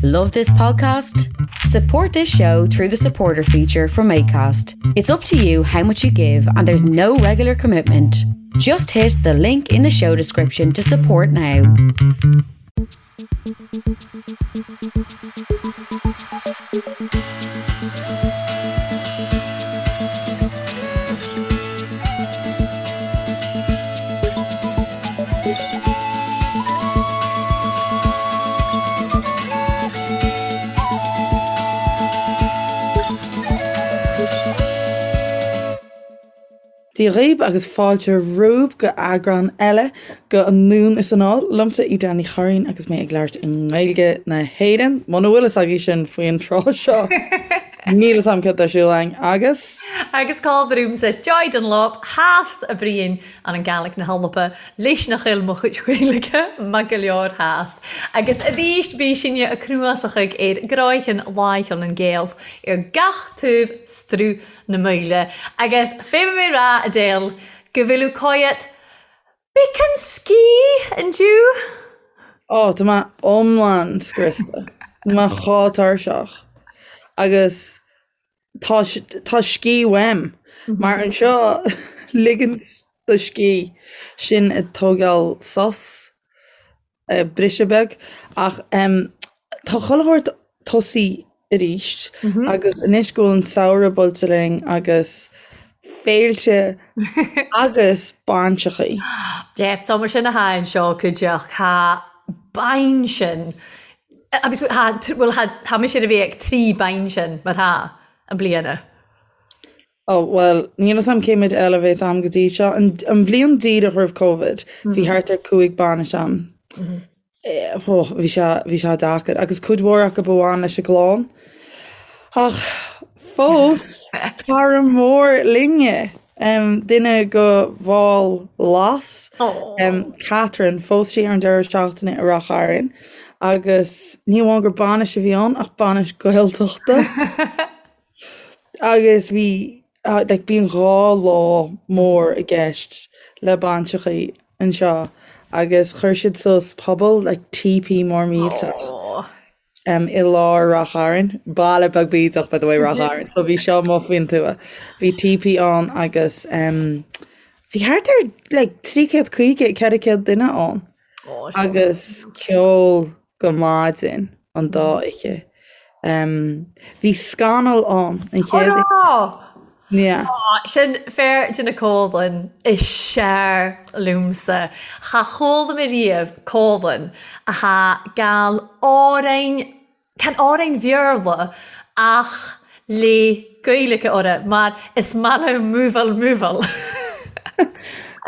Love this podcast? Support this show through the supporter feature from ACAST. It's up to you how much you give, and there's no regular commitment. Just hit the link in the show description to support now. Dia dhaoib agus fáilte romhaibh go eagrán eile go Anonn is Anall, liomsa Edel Ní Churraoin agus mé ag labhairt i nGaeilge na hÉireann, muna bhfuil fhios agaibh sin faoin tráth seo. Níl fhios a'm cad tá ar siúl againn agus. Agus cá bhfrúmsa Joy Dunlop theas a Briain an an Gàidhlig na h-Alba leis nach eil mo chuid Gaeilge maith go leor theas. Agus arís bí sinne a cnuasachaidh ar gcráicheann láicheann an Gaelth ar gach taobh struth na Maoile. Agus féadfaidh mé rá, Edel, go bhfuil cáidheat Beacán scíth indiu. Ó, tá mé iomlán scriosta. Tá mé chomh tuirseach. Agus tá tá scíth uaim. Mar anseo ligean do scíth sin ag tógáil sos. briseadh beag ach tá chuile shórt tosaí arís agus anois go bhfuil an samhradh buailte linn agus féilte agus bainseachaí. Yeah, tá mar sin atá anseo cuideachta tá bainsean agus tá bhuel tá mise ar a bheith ag 3 bainsean mar tá an bliana. Ó, bhuel, níl fhios a'm cé mhéad eile a bheas a'm go dtí seo. An, an bhliain díreach roimh Covid, bhí thart ar 5 bainis a'm. Ó, bhí sé, bhí sé deacair. Agus cuid mhór acu a bhain leis an gclann. Ach fós, cara mór linne, um, duine go bhall Las, um, Catherine, phós sí ar an deireadh seachtaine i Ráth Chairn. Agus ní amháin gur bainis a bhí ann, ach bainis Gaeltachta. Agus bhí, like, bíonn 2 lá mór i gceist le bainseachaí anseo agus chuir siad suas puball, like, teepee mór millteach um, i lár Ráth Chairn, baile beag bídeach, by the way, Ráth Chairn, so bhí seo amuigh faoin tuath. Bhí teepee ann agus um, bhí thart ar like, 350, 400 duine ann agus ceol go maidin an dá oíche. Bhí scannal ann an chéad oíche. Yeah. Sin fear de na comhlainn is sear liomsa. Cha chuala mé riamh comhlainn atá gal amhráin, chan amhráin Bhéarla ach le Gaeilge orthu mar is maith liom múbháil múbháil.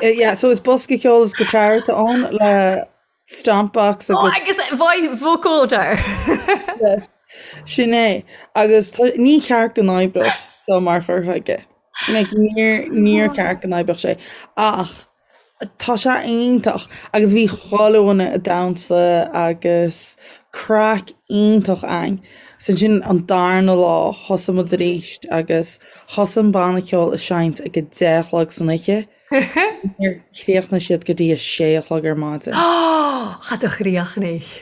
Yeah, so is bosca ceoil is guitar atá ann le Stompbox agus. Agus vocoder! Yes. Sin é. Agus ní ceart go n-oibreodh seo mar chur chuige. Like, níor, níor cheart go n-oibreodh sé. Ach tá sé iontach. Agus bhí chuile dhuine ag damhsa agus craic iontach ann. So ansin an darna lá thosaigh muid arís agus thosaigh an banna ceoil ag seinnt ag a 10 a chlog san oíche. Níor chríochnaigh siad go dtí a sé a chlog ar maidin. Cha do chríochnaigh.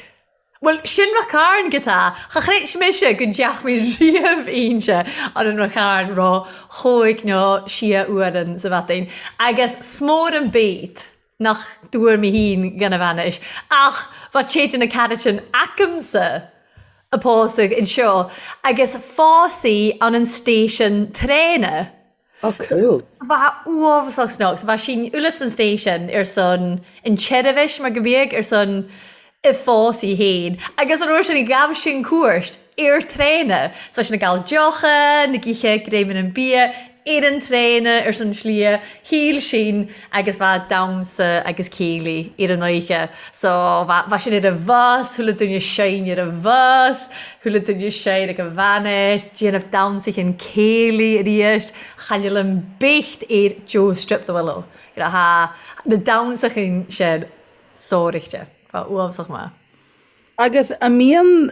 Bhuel, sin Rath Cairn go tá. Cha chreid mise go ndeach mé riamh inse ar an Rath Cairn ro chóig nó sia uairean sa mhaidin. Agus 's mór an bét nach dtuar mé fhéin gan a bhainis, ach bha téid na caraitin acamsa a pósadh anseo agus phós í ann an station traena. Oh cool. Bha uabhasach snug. So bha sinn uile san station ar son an tseirbhis mar go mbíodh ar son a phósadh fhéin. Agus an uair sin ghabh sinn cuairt ar traena. So bha sinn ag gabháil deocha, na githe greiminn an bia ar an traena ar son slighe. Shíl sinn agus bha damhsa agus céilí ar an oíche. So bha bha sinn ar an bhus, chuile duine sinn ar an bhus, chuile duine sinn ag an bhainis, déanamh damhsa chinn céilí arís, chan eil am becht ar Joe Strip the Willow. You know, tha na damhsa chinn sin sóirichte. Bha uabhasach maith. Agus a mbíonn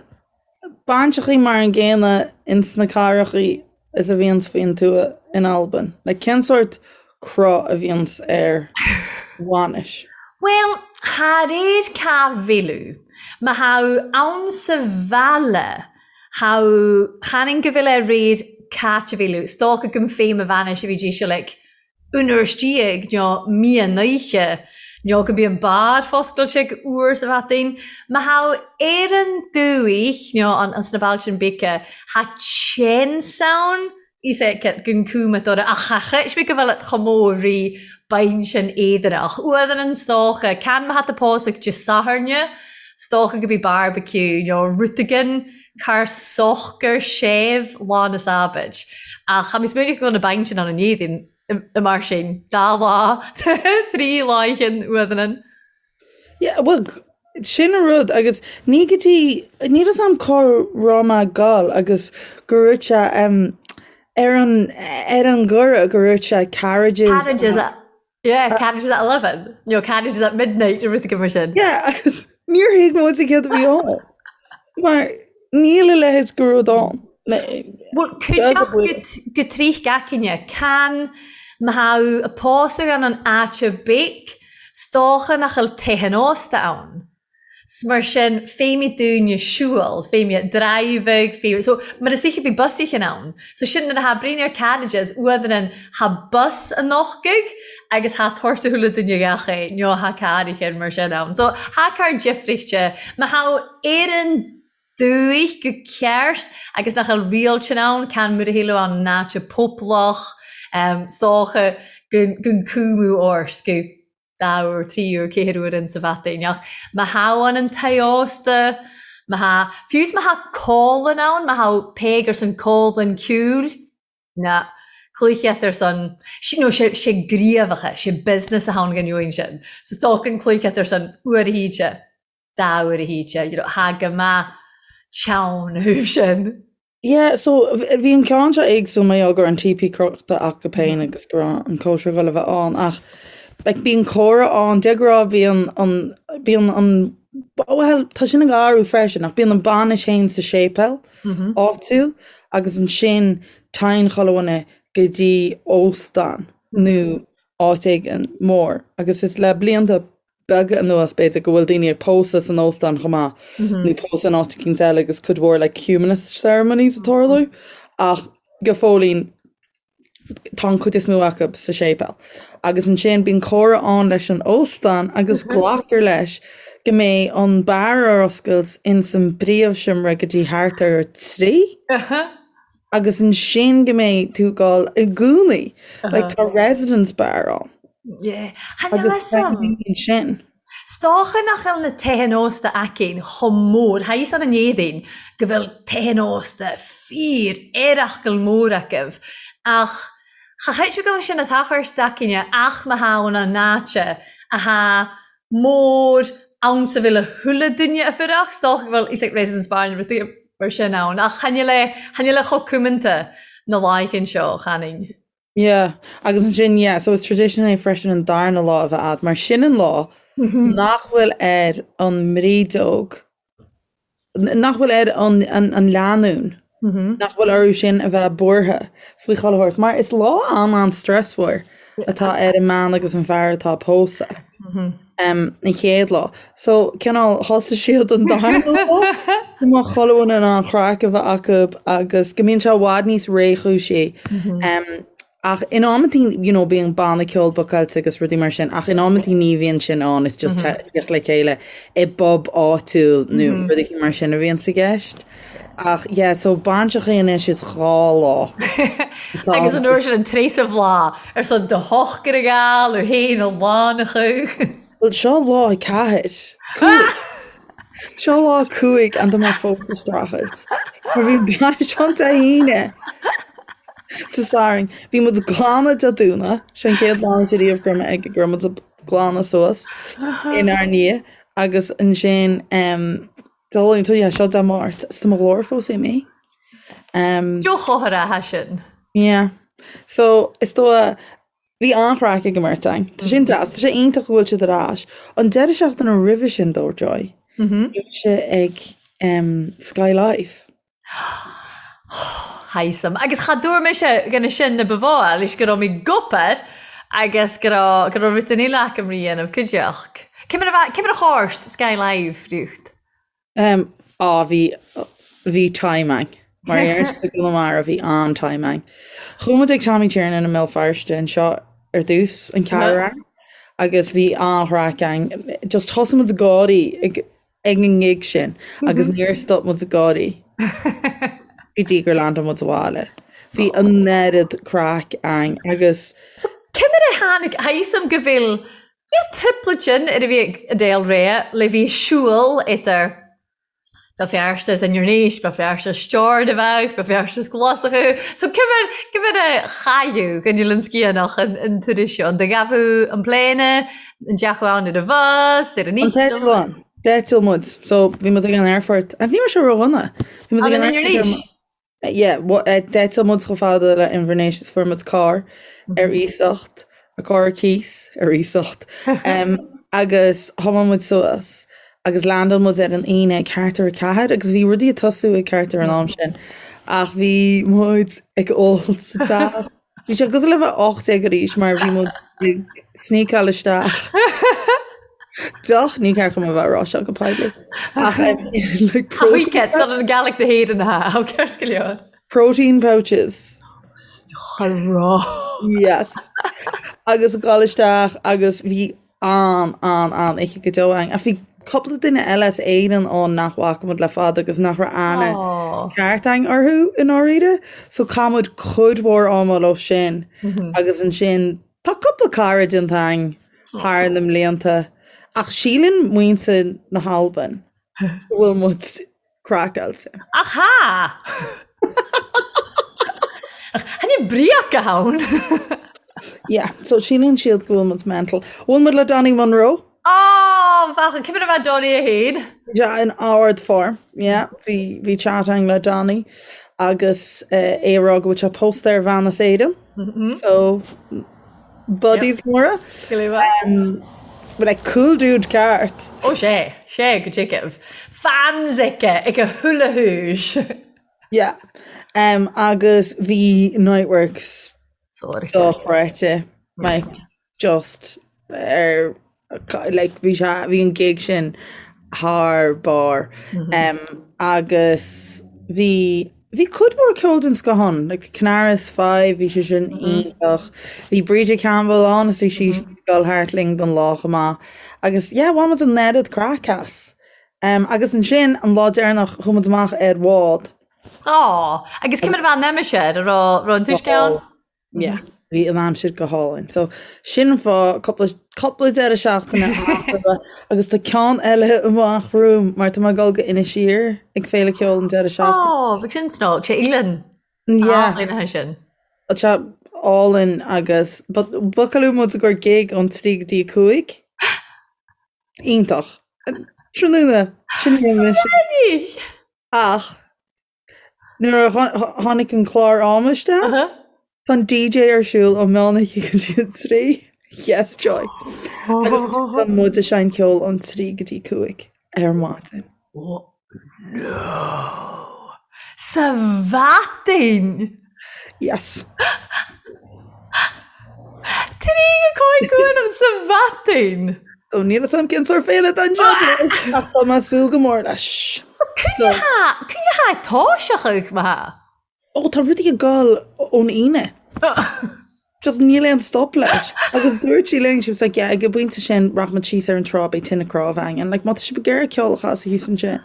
bainseachaí mar an gcéanna ins na cathrachaí is a bhíonns faoin tuath in Albain? Like, cén sórt cruth a bhíonns ar bhainis? Bhuel, Tha réir ca bhil Ma tha thu ann sa bhaile tha thu chan fhinn go bhfuil air réir cáit a bhil 's dócha gum fé mo bhainis a bhí dí seo like un uair istigh nó mian oíche nó go mbíonn beár foscailte ag uair sa bhataín. Ma tha thu ar an dúich nó an sna bailte an bíce tha tseans ann Is é gun cuma dora ach cha chreid mé go bhfuil et chomh mór rí beinn sin éadanach. Uadhan an 's dócha, can ma tha tu pósadh Dé Sathairne, 's dócha go bí barbecue nó rud éigin car socair séimh lá na Sabaid. Ach cha mé smaoineamh go bhfuil na beinn sin ann in éadain i mar sin, dá lá, trí láicheann uadhan an. Yeah, well, sin an rud agus ní go dtí, níl fhios a'm cá raibh mé ag gabháil agus go raibh sé um, ar an, ar an gcuireadh go raibh sé carriages. Carriages at, yeah, carriages at 11, nó carriages at midnight nó rud éigin mar sin. Yeah, agus níor thuig muid céard a bhí ann. Mar níl a leithéid de rud ann. Bhuel, cuideachta go trích gach aoinne, can ma tha thu a pósadh ann an áite big, 's dócha nach bhfuil tithe an ósta ann. 'S mar sin, féimidh dúinne siúl, féimidh driving, féimidh, so mar is oíche bhí bus oíche ann. So sin nuair a tha bruíon ar carriages, uaidh tha bus an nochtaidh agus tha tabhairt a chuile duine gach é, nó tha carr oíche mar sin ann. So tha carr difrichte, ma tha ar an dúich go ceart agus nach bhfuil riail sin ann, can mura shíleadh an áite poblach, 's dócha gun cúmú ort go dá uair, trí uair, ceathair uair insa bhataín. Ach má tha an tigh ósta, má tha, fiú 's má tha cólann ann, má tha peig ar son cólann ciúil, na cluicheat ar son, nó sé, sé gníomhacha, sé business a tháinig an uain sin. So tógann cluicheat ar son uair a híte, dá uair a híte, you know, tha go maith teann a thaobh sin. Yeah, so bhí an ceann seo éagsúil mar gheall go raibh an TP crochta acu féin agus go raibh an cóisir ag dul a bheith ann ach like bíonn comhrá ann, de ghnáth bíonn an, bíonn an, bhuel tá sin ag athrú freisin ach bíonn an bainis féin sa séipéal áitiúil agus ansin téann chuile dhuine go dtí óstán nó áit éigin mór agus is le blianta beaga anuas, b'fhéidir, go bhfuil daoine ag pósadh san óstán chomh maith, nó pósadh in áit eicínt eile agus cuid mhór like humanist ceremonies ag tarlú, ach go fóillín tá an chuid is mó acu sa séipéal. Agus ansin bíonn comhrá ann leis an óstán agus glactar leis go mbeidh an beár ar oscailt ins an bpríomhsheomra go dtí thart ar a trí. Agus ansin go mbeidh tú ag dul i gcónaí. Like tá residence bar ann. Yeah. Chan fhios Agus a'm. ansin. 'S dócha nach bhfuil na tithe ósta aicinn chomh mór, tha fhios ann an Éadaoin go bhfuil tithe ósta fíor earrachgal mór acu, ach cha chreid mé go bhfuil sin a' tachairt d'aicinne ach má tha ann an áite a tha mór ann sa bhfuil a thuilleadh duine a fuireach, 's dócha go bhfuil is like residence bar nó rudaí mar sin ann, ach chan fhuil é, chan fhuil é chomh cumanta na laethe seo, chan fhinn. Yeah, agus ansin, yeah, so is tradition é freisin an darna lá a bheith a'd, mar sin an lá nach bhfuil ar an mbrídeog, nach bhfuil ar an, an, an lánúin, nach bhfuil orthu sin a bheith buartha faoi chuile shórt, mar is lá an-an-stressmhar atá ar an mbean agus an fear atá ag pósadh an chéad lá. So, cineál, thosaigh siad an darna lá, go mbeadh chuile dhuine in ann craic a bheith acu agus go mbíonn sé i bhfad níos réchúisí. Ach in amantaí, you know, bíonn banna ceoil bookáilte agus rudaí mar sin, ach in amantaí ní bhíonn sin ann, it's just teacht le chéile i bpub áitiúil nó rudaí mar sin a bhíonn sa gceist. Ach yeah, so bainseachaí anois is dhá lá. Agus an uair sin an tréasamh lá ar son do shochar a ghabháil ó fhéin a lánacha. Bhuel seo lá ceathair. Cúig. Seo lá cúig and tá mé fós ag streachailt. Mar bhí bainis ann Dé hAoine. Dé Sathairn. Bhí muid ag glanadh Dé Domhnaigh. Sin an chéad bhainis ariamh go raibh mé ag go raibh muid ag glanadh suas inár ndiaidh. Agus ansin Dé Luain, so yeah, seo Dé Máirt. Is tá mo ghlór fós imithe. Joe chothair atá sin. Yeah. So is dóigh Bhí an-chraic ag an mbeirt againn. Tá sin deas. Tá sé iontach go bhfuil siad ar ais. An deireadh seachtaine roimhe sin dó, Joy, bhí mise ag Sky Live. Thaism. Agus cha dúirt mise gona sin na ba mhó leis go raibh mé ag obair agus go raibh go raibh rud den uile acu rí dhéanamh cuideachta. Cé mar a cé mar a chòrd Skye Live riocht? Um, á, bhí, bhí time ann. Mar a deireann i gConamara, bhí an-time ann. Chuaigh muid ag Tommy Tiernan i mBéal Feirste anseo ar dtús, an ceathrú ann, agus bhí an-chraic ann. Just thosaigh muid ag gáirí ag, ag an ngig sin agus níor stop muid ag gáirí go dtí gur landáil muid abhaile. Bhí an oiread craic ann agus. So, cé mar a tháinig, tha fhios a'm go bhfuil Níl triplet sin ar a bhí ag Adele Rea le bhí siúl idir Béal Feirste is Inbhir Nis, Béal Feirste is Steòrnabhagh, Béal Feirste is Glaschú. So cé mar cé mar a chailleadh go níl an sciathanach an an turas seo, an do ghabhadh an pléine, an deachú ann ar an bhus, ar an An t-eitleán. D'eitil muid. So bhí muid ag an aerfort. Ní raibh sé ródhona. Bhí muid ag an An Inbhir aerfort. Nis? Yeah, d'eitil muid chomh fada le Inbhir Nis is fuair muid carr ar iasacht, carr ar cíos ar iasacht, agus thiomáin muid suas agus landáil muid ar an Aoine ag ceathrú ar a ceathair agus bhí rudaí ag tosú ag ceathrú an am sin ach bhí muid ag ól sa teach. Bhí sé cosúil le bheith 18 arís mar bhí muid ag sneakáil isteach. Deoch ní ceart dom a bheith ag rá seo go poiblí. Ach like protein. Chuige san an Gaelic na hÉireann ha á ceart go leor. Protein pouches. Rá. Yes. Agus ag dul isteach agus bhí an, an, an oíche go deo againn. Ach bhí cúpla duine eile as Éirinn ann nach bhfaca muid le fada agus nach raibh aithne ceart againn orthu i ndáiríre. So chaith muid cuid mhór ama leo sin agus ansin tá cúpla cara déanta againn thar na mblianta ach síleann muintir na hAlban go bhfuil muid craiceáilte. Ach tha! Tha ni breac ann! Yeah, so síleann siad go bhfuil muid mental. Bhuail muid le Donny Munro. Oh, bheadh cé mar a bheith Donny a haon. Yeah, in ard-form. Yeah, bhí bhí chat againn le Donny agus eh, é ag rá go bhfuil sé pósta ar bhean as Éirinn. So Buddies móra. But like cool dude ceart. Ó sé, sé go dtigeamh. Fans aici ag a hula húis. Yeah. Um, agus bhí Niteworks dochreidte. Like, just ar like, bhí sé bhí an gig sin thar barr. Um, agus bhí Bhí cuid mhór ceol den scoth ann, like Canaris 5, bhí sé sin iontach. Bhí Bríde Campbell ann is bhí sí ag dul thart linn don lá chomh maith. Agus yeah, bhain muid an oiread craic as. Um, agus ansin, an lá deireanach, chuaigh muid amach ar bhád. Á, agus cé mar a bheith an aimsir, an raibh raibh an t-uisce ann? Yeah, bhí an aimsir go hálainn. So sin an fáth cúpla cúpla deireadh seachtaine eatarthu agus tá ceann eile amach romham mar tá mé ag dul go Inis Oírr ag Féile Ceoil an deireadh seachtaine. Ó, bheadh sin snóg, sé Eilean. Yeah. Álainn atá sin. Tá sé álainn agus but bookáladh muid i gcomhair gig ón 3 go dtí 5. Iontach. Tráthnóna, sin í an mise. Ach Nuair a tháinig an clár ama isteach, tá an DJ ar siúl ó meán oíche go dtí an 3. Yes, joy. Agus tá muid ag seinnt ceoil ón 3 go dtí 5 ar maidin. No! Sa mhaidin! Yes. 3 go 5 uair an sa mhaidin! So níl fhios a'm cén sórt féile atá anseo ach tá mé ag súil go mór leis. Cúinne tha toiseachadh ma tha. Ó tá rudaí ag dul ón Aoine. Just níl aon stop leis. Agus dúirt sí linn, she was like, yeah, ag an bpointe sin rachaimid síos ar an trá beidh tine cnámh againn. And like má tá sibh ag iarraidh ceol a chasadh thíos ansin.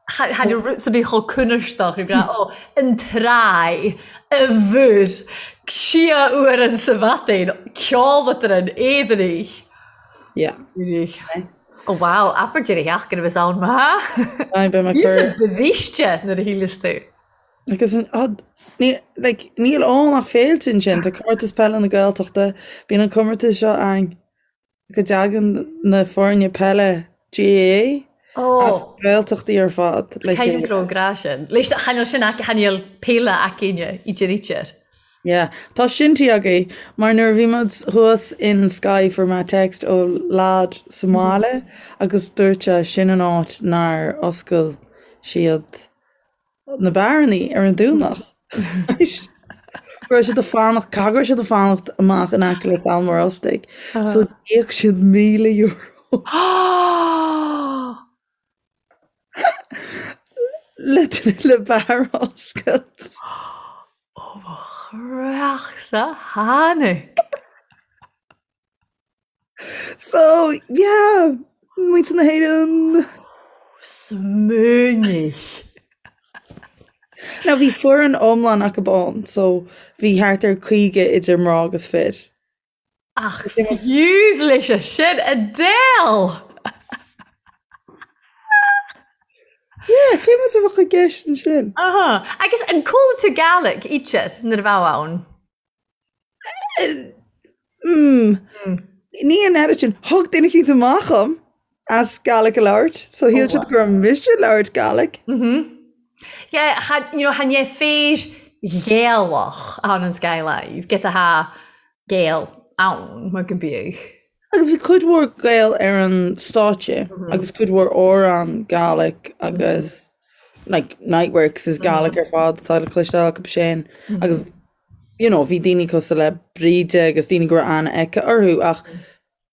Tha rud sa bith cho cùnairsdeach ag ràdh, Ó, an traigh, a bhur, sia uair an sa mhadain, ceòl-eadrainn, éadanich. Yeah. Ó wow, abair deireadh sheachtaine a bheas ann ma. Aye, beidh mé Níos cur. bríste nuair a shíleas tú. Agus an, ah, ní, like, níl ann ach féilte ansin, tá comórtas peile na Gaeltachta, bíonn an comórtas seo ann. go dtagann na foirne peile GAA as Gaeltachtaí ar fad le chéile. Caithfidh go raibh sin. Leis chan eil sin chan eil peile againne i dTirítear. Yeah. Tá sin tí agaibh, mar nuair a bhí muid thuas in Skye fuair mé text ó lad sa mbaile agus dúirt sé sin an áit nár oscail siad na beárannaí ar an Domhnach. Go raibh siad ag fanacht, caithfidh go raibh siad ag fanacht amach in aice le Sabhal Mòr Ostaig. So d'íoc siad €1,000. Le le beár a oscailt. Ó mo chreachsa tháinig! So, yeah, muintir na hÉireann. Smaoinigh. Now bhí foireann iomlán acu ann, so bhí thart ar 50 idir mná agus fir. Ach fiú leis sin, Adele! Yeah, cé muid a bheadh i gceist ansin? Aha. Agus an chuala tú Gaelic idir nuair a bheadh ann? Mm. Ní an oiread sin. Thug duine eicínt amach dhom as Gaelic a labhairt, so shíl siad go raibh mise ag labhairt Gaelic. Yeah, cha, you know, chan é fir Ghaelach ann an Sky Live, get a ha Gael ann, mar go mbíodh. Agus bhí cuid mhór Gael ar an stáitse agus cuid mhór amhrán Gaelic agus like Niteworks is Gaelic ar fad atá le cloisteáil acu sin agus you know bhí daoine cosúil le Bríde agus daoine go raibh aithne aici orthu ach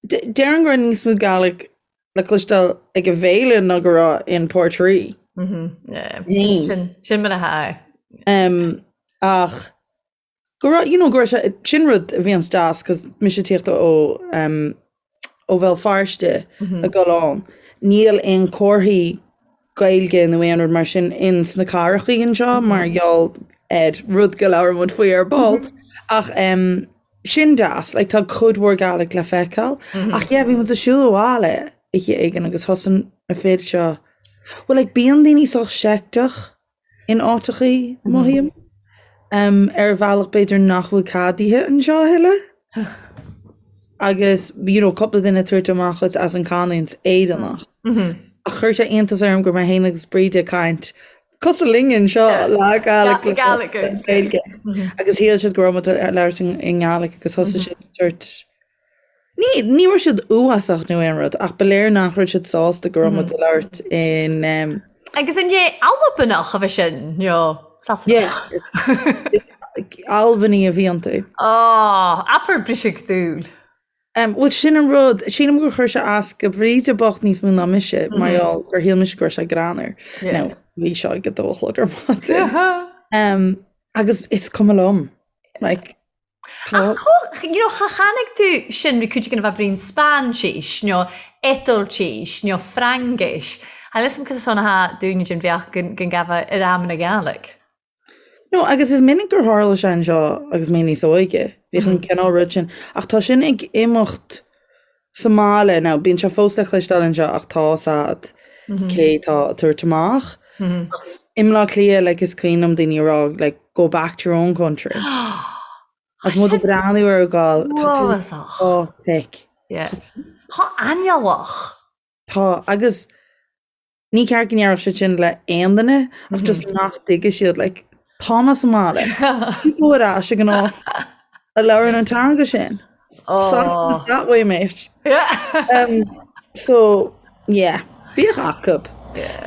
déarfainn go raibh níos mó Gaelic le cloisteáil ag an bhféile ná go raibh in Portree. Sin sin mar atá. Um, ach go raibh, you know, go raibh sé, sin rud a bhíonns deas, cos mise ag tíocht ó, um, ó Bhéal Feirste ag dul ann, níl aon comharthaí Gaeilge nó aon rud mar sin in sna cathrachaí anseo mar gheall ar rud go labhróidh muid faoi ar ball. Ach um, sin deas, like, tá cuid mhór Gaelic le feiceáil. Ach yeah, bhí muid ag siúl abhaile oíche éigin agus thosaigh na fir seo, well, like, bíonn daoine sách seicteach in áiteachaí, mothaím, ar bhealach b'fhéidir nach bhfuil ceadaithe anseo a thuilleadh. Agus, you know, cúpla duine ag tabhairt amach dhuit as an canúint Éireannach. Ach chuir sé iontas orm go raibh mé féin agus Bríde ag caint cosúil linn anseo le Gaelic le Gaeilge. Agus shíl siad go raibh muid ag labhairt i nGaelic agus thosaigh siad ag tabhairt Ní, ní raibh siad uafásach nó aon rud, ach ba léir nach raibh siad sásta go raibh muid ag labhairt in. Agus an é Albanach a bhí sin, nó Sasanach? Albanaigh a bhí iontu. Á, abair briseadh dúil. Bhuel, sin an rud, sílim gur chuir sé as go Bríde bocht níos mó ná mise, mar gheall gur shíl mise go raibh sé greannmhar. Now, bhí seo ag a dó a chlog ar maidin. Agus is cuma liom. Like, Ach có, you know, cha chonaic tú sin ri cuid againn a bheith brín Spáinsis nó Iodáiltis nó Fraincis. Tha fhios a'm cos a tha dúinne den bheach gon gabha ar am na Gàidhlig. No, agus is minic gur tharla sé anseo agus mé níos óige, bhíodh an cineál rud sin, ach tá sin ag imeacht sa mbaile now, bíonn sé fós le cloisteáil anseo ach tá 's a'd cé tá ag tabhairt amach. Ach i mBleá Cliath, like, is cuimhin liom daoine ag rá, like, go back to your own country. Agus muid ag breathnú orthu ag gabháil, tá tú Uafásach. chomh thick. Yeah. Tha aineolach. Tá, agus Ní ceart go ndéarfadh siad sin le aon duine ach just nach dtuigfidh siad like tá mé sa mbaile go ar ais ag an áit a labhrann an teanga sin. Oh. That way mate. Um, so yeah, bíodh acu.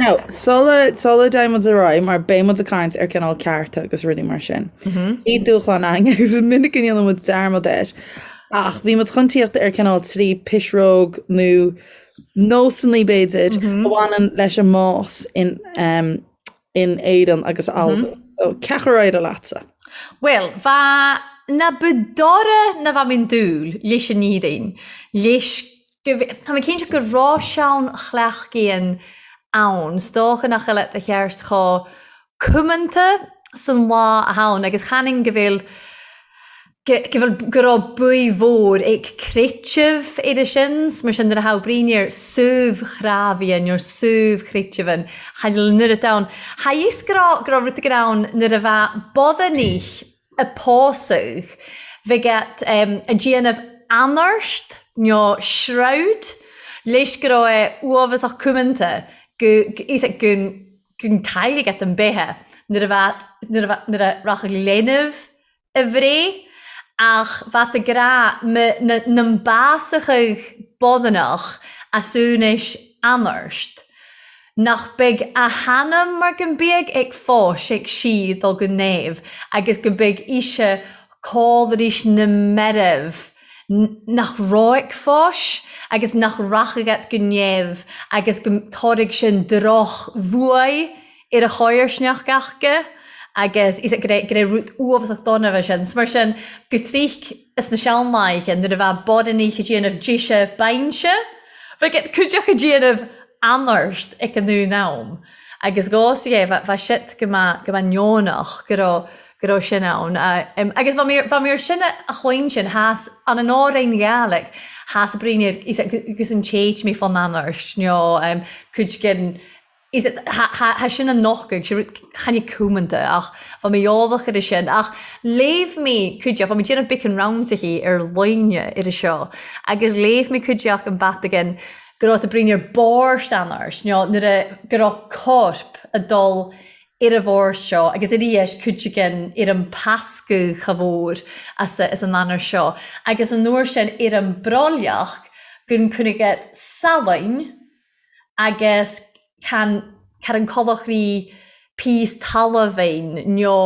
Now, sula sula dtéann muid ar aghaidh mar beidh muid ag caint ar cineál cearta agus rudaí mar sin. Bhí dúshlán againn agus is minic go ndéanann muid dearmad air. Ach bhí muid chun tíocht ar cineál trí pisreog nó nósanna b'fhéidir a bhaineann leis an mbás in in Éirinn agus Albain. So cé acu ar éirigh leatsa? Bhuel, bha na budora na bha minn dúil leis an Éirinn, leis go Tá mé cinnte go raibh sean-chleachtaíonn ann, 's dócha nach eile do cheart chomh cumanta san lá a ann agus chanainn go bhfuil go bhfuil, go raibh buí mhór ag creiteamh ar sin, 's mar sin nuair a thabh bruíon ar suibh-chrábhaidhe nó suibh-chreiteamhan, cha bhfuil an oiread ann. Cha fhios go raibh, go raibh rud éigin ann nuair a bheadh bodhannaí a pósadh, bheadh ag déanamh anairt nó shroud leis go raibh é uafásach cumanta go, go, go, go cailligh an beithe nuair a bheadh, nuair a bheadh, nuair a rachadh leanbh a bhréith, ach bheadh ag rá na mbásachadh bodhanach as úinéis anairt. nach beidh a hanam mar go mbeidh ag fáis ag sír dul go neamh agus go mbeidh ise cáil na meirbh nach raibh ag fáis agus nach rachaidh at go neamh agus go dtabharfaidh sin droch bhuaidh ar a chomharsanacht aca agus is go raibh go raibh rud uafásach dona bheith sin. So mar sin go trích is na seanlaethe nuair a bheadh baineannaigh ag déanamh deise bainse bheadh cuid acu ag déanamh anairt ag an aon am agus dhá sa é bheadh siad go mbeadh go mbeadh neonach go raibh go raibh sin ann. Agus bha mi bha mi air sin a chluinstin theas an an Árainn Ghaidhlig theas bruíon ar agus an téit mé fán anairt nó cuid den is tha sin an nochtadh, sé rud tháinig cumanta ach bha mi eòlach air sin. Ach léibh mi cuideachd, bha mi déanamh beacan ramsachaidh ar loinge air seo agus léibh mi cuideachd an batagan go raibh a bruíon ar bòrd anairt nó nuair a go raibh corp a' dul ar an bhord seo agus arís cuid againn ar an pascadh cha mhór as as an anairt seo agus an uair sin ar an brollach gun cuireadh salainn agus can car an colachraí píos talmhain nó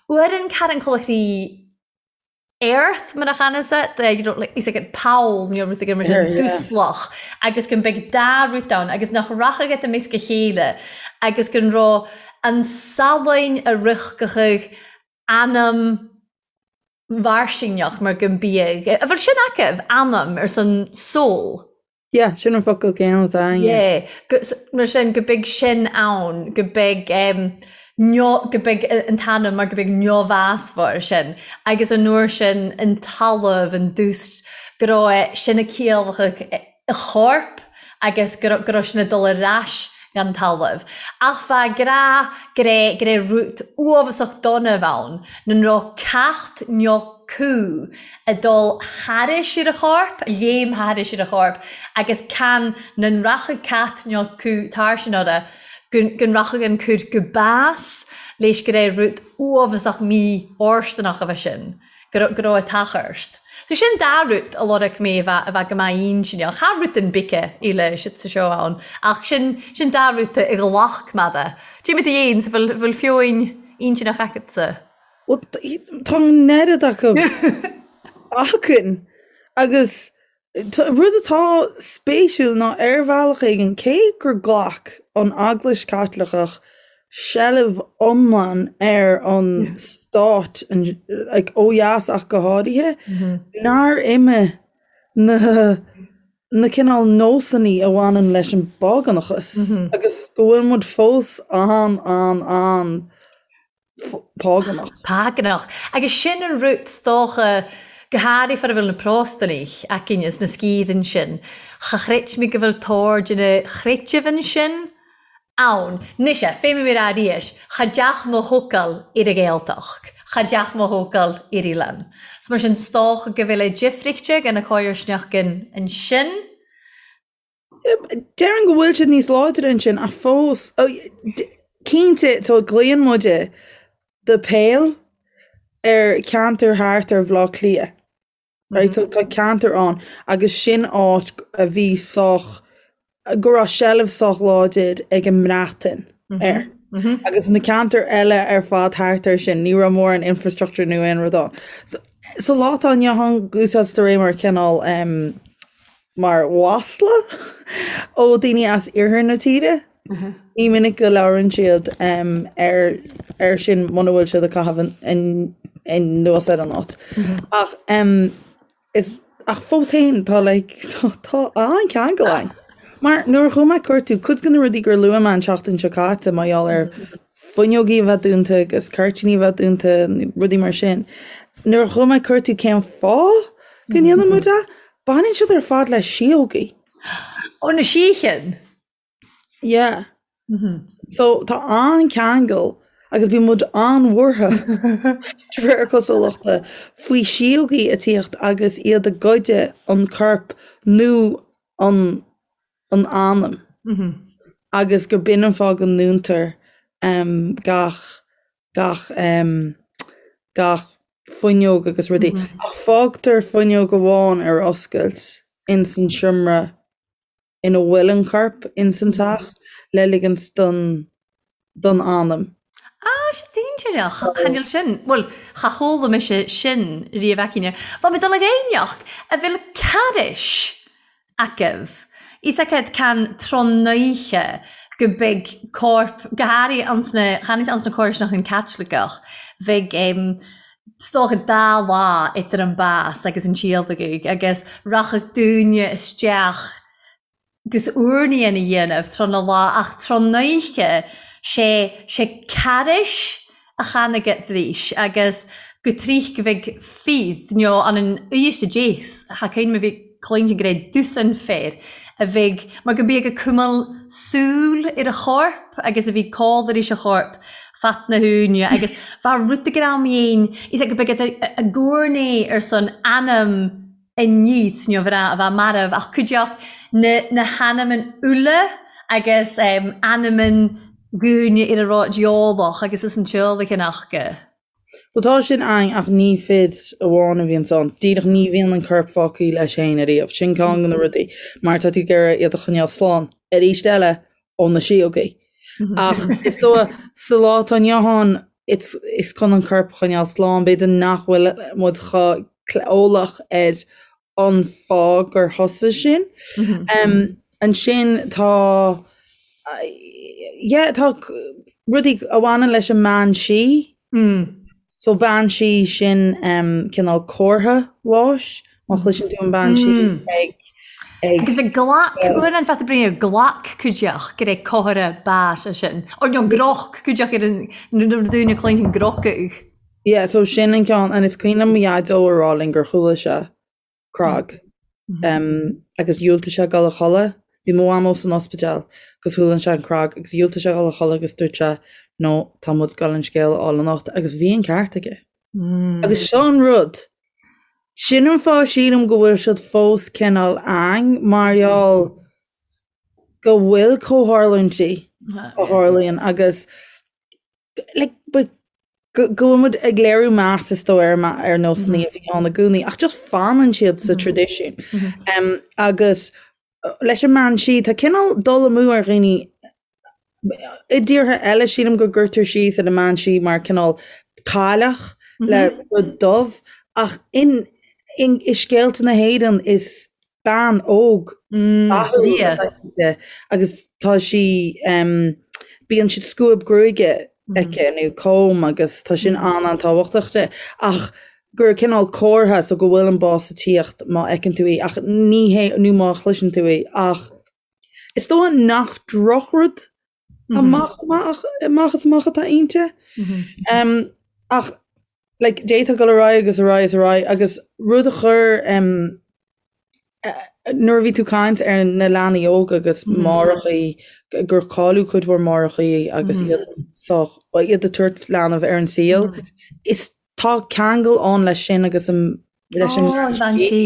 uairean car an colachraí earth mar a channas it you know like is like an poll nó rud éigin mar sin dúslach agus go mbeidh dá rud ann agus nach rachadh iad i measc a chéile agus go raibh an salainn a rithgeadh anam mhairsinneach mar go mbiadh a bhfuil sin acu anam ar son soul. Yeah, sin an focal céanna atá againne. Yeah, go, mar sin go mbeidh sin ann, go mbeidh um, go mbeidh an t-anam mar go mbeidh neamhbhásmhar sin agus an uair sin an talamh, an dúst, go raibh sin ag ciallachadh a chorp agus go raibh, go raibh sin ag dul ar ais gan talamh. Ach bha grá go raibh, go raibh rud uafásach dona ann, nan raibh cat nó cú ag dul thairis ar a chorp, léim thairis ar a chorp, agus can nan rachadh cat nó cú tarsin orra, go rachadh an cur go bás leis go raibh rud uafásach mí-fhóirsteanach a bheith sin, go raibh, go raibh ag tachairt. So sin dá rud a lorg mé a bheith, a bheith go maith intinneach. Cha rud an bice eile siad sa seó ann, ach sin, sin dá rud a ghlac mé de. Cad é mar atá fhéin, so bhfuil, bhfuil feoin intinneach agatsa? Bhuel, tá an oiread acu againn agus rud atá spéisiúil ná ar bhealach éigin, cé gur ghlac an Eaglais Chaitliceach seilbh iomlán ar an stát, like, ó dheas ach go háirithe, nár imigh na na cineál nósanna a bhaineann leis an bpágánachas agus go bhfuil muid fós an, an, an págánach. Págánach. Agus sin an rud 's dócha, go háirithe far a bhfuil na Próstanaigh againn is na sciathain sin, cha chreid mé go bhfuil tóir de na chreidimh ansin ann. Mise, fé mar a arís, cha dteach mo thocal ar an Ghaeltacht, cha dteach mo thocal ar oileán. So mar sin, 's dócha go bhfuil a difríochta gan na comharsnachtain ansin. Déarfainn go bhfuil siad níos láidre ansin ach fós, cinnte, so glaonn muide The Pale ar cheantar thart ar Bhaile Átha Cliath. Right, so tá ceantar ann agus sin áit a bhí sách, go raibh seilbh sách láidir ag an mBreatain air. Agus na ceantair eile ar fad thart air sin, ní raibh mórán infrastructure nó aon rud ann. So, sa lá atá inniu ann, úsáidtear é mar chineál mar mhasla ó daoine as iarthar na tíre. Ní minic go labhrann siad ar ar sin muna bhfuil siad ag caitheamh anuas ar an áit. Ach is ach fós féin tá like tá tá an-cheangal ann. Mar nuair a chuaigh mé ag cuartú, cuid de na rudaí gur luaigh mé an tseachtain seo caite mar gheall ar fuinneogaí a bheith dúnta agus cuirtíní a bheith dúnta, rudaí mar sin. Nuair a chuaigh mé ag cuartú cén fáth go ndéanann muid é, Baineann siad ar fad le síógaí. Ó, na síocháin! Yeah. So tá an-cheangal agus bíonn muid an-bhuartha de réir cosúlachta faoi síógaí ag tíocht agus iad ag goid an corp nó an an anam agus gur b'in an fáth go ndúntar gach gach gach fuinneog agus rudaí. Ach fágtar fuinneog amháin ar oscailt ins an seomra ina bhfuil an corp ins an teach. le ligint don don anam. Ah, sé dainséarach, chan eil sin, bhuel, cha chuala mise sin riamh aicíne. Bha mi dol ag aoinneachd a bheil carais agaibh. Is agat can tráthnóiche go beidh corp, go háirithe ans na, chan is ans na comharsanachain Caitliceach, bheidh em, 's dócha dá lá idir an bás agus an tíolacadh agus rachadh daoine isteach 'gus urnaí a dhéanamh tráth na lá ach tráthnóiche sé sé carais a chanaigidís agus go tríth go bheidh fíth nó an an uisce déas cha cuimhin liom a bhí cluintin go raibh dosaen fir a bheidh mar go mbíodh ag cumail súil ar a chorp agus a bhí cáil arís a chorp fat na húine agus bha rud a greim dhéin is go mbeidh a gcúrnaí ar son anam a níos nó bhreá a bheith marbh ach cuideacht na na hanamain uile agus anamain dhaoine ar a raibh diabhalach agus is an tionlacan acu. Bhuel tá sin ann ach ní fir amháin a bhíonns ann. Díreach ní bhíonn an corp fágtha leis féin ariamh. Sin ceann de na rudaí mar tá tú ag iarraidh iad a choinneáil slán arís eile ó na síogaí. Ach is dóigh sa lá atá inniu ann it's is chun an corp a choinneáil slán b'fhéidir nach bhfuil muid chomh eolach ar an fáth gur thosaigh sin. Ansin tá yeah tá rudaí a bhaineann leis an mbean sí. So bean sí sin cineál comhartha bháis má chloiseann tú an bean sí ag ag Agus bheith glac uair an fata brí glac cuideach go raibh comhartha báis sin. Or nó groch cuideach ar an nuair a dúine cluinstin grocadh. Yeah, so sin an ceann, and is cuimhin liom mo dhaideo a rá linn gur chuala sé cnag agus dhiúltaigh sé dul a chodladh. Bhí mo mhamó san ospidéal agus chuala sé an cnag agus dhiúltaigh sé dul a chodladh agus dúirt sé no, tá muid ag dul an scéal a fháil anocht agus bhí an ceart aige. Agus seo an rud, sin an fáth sílim go bhfuil siad fós cineál ann mar gheall go bhfuil comhtharlúintí a tharlaíonn agus like, but go go bhfuil muid ag léiriú meas is dóigh ar ar nósanna a bhí ann i gcónaí ach just fanann siad sa traidisiún. Um, agus uh, leis an mbean sí tá cineál dul amú ar dhaoine i dtíortha eile sílim go gcuirtear síos ar an mbean sí mar cineál cailleach le rud dubh ach in in i scéalta na hÉireann is bean óg dathúil atá inti agus tá sí bíonn siad scuab gruaige aici nó comb agus tá sin an-an-tábhachtach di ach gur cineál comhartha so go bhfuil an bás ag tíocht má fheiceann tú í ach ní hé nó má chloiseann tú í ach is dóigh nach drochrud amach amach amach is amach atá inti. Ach like d'fhéadfá dul ar aghaidh agus ar aghaidh is ar aghaidh agus rud a chuir um, nuair a bhí tú ag caint ar na leanaí óga agus máithreachaí gur cailleadh cuid mhór máithreachaí agus iad sách iad ag tabhairt leanbh ar an saol is tá ceangal ann leis sin agus an leis an mbean sí.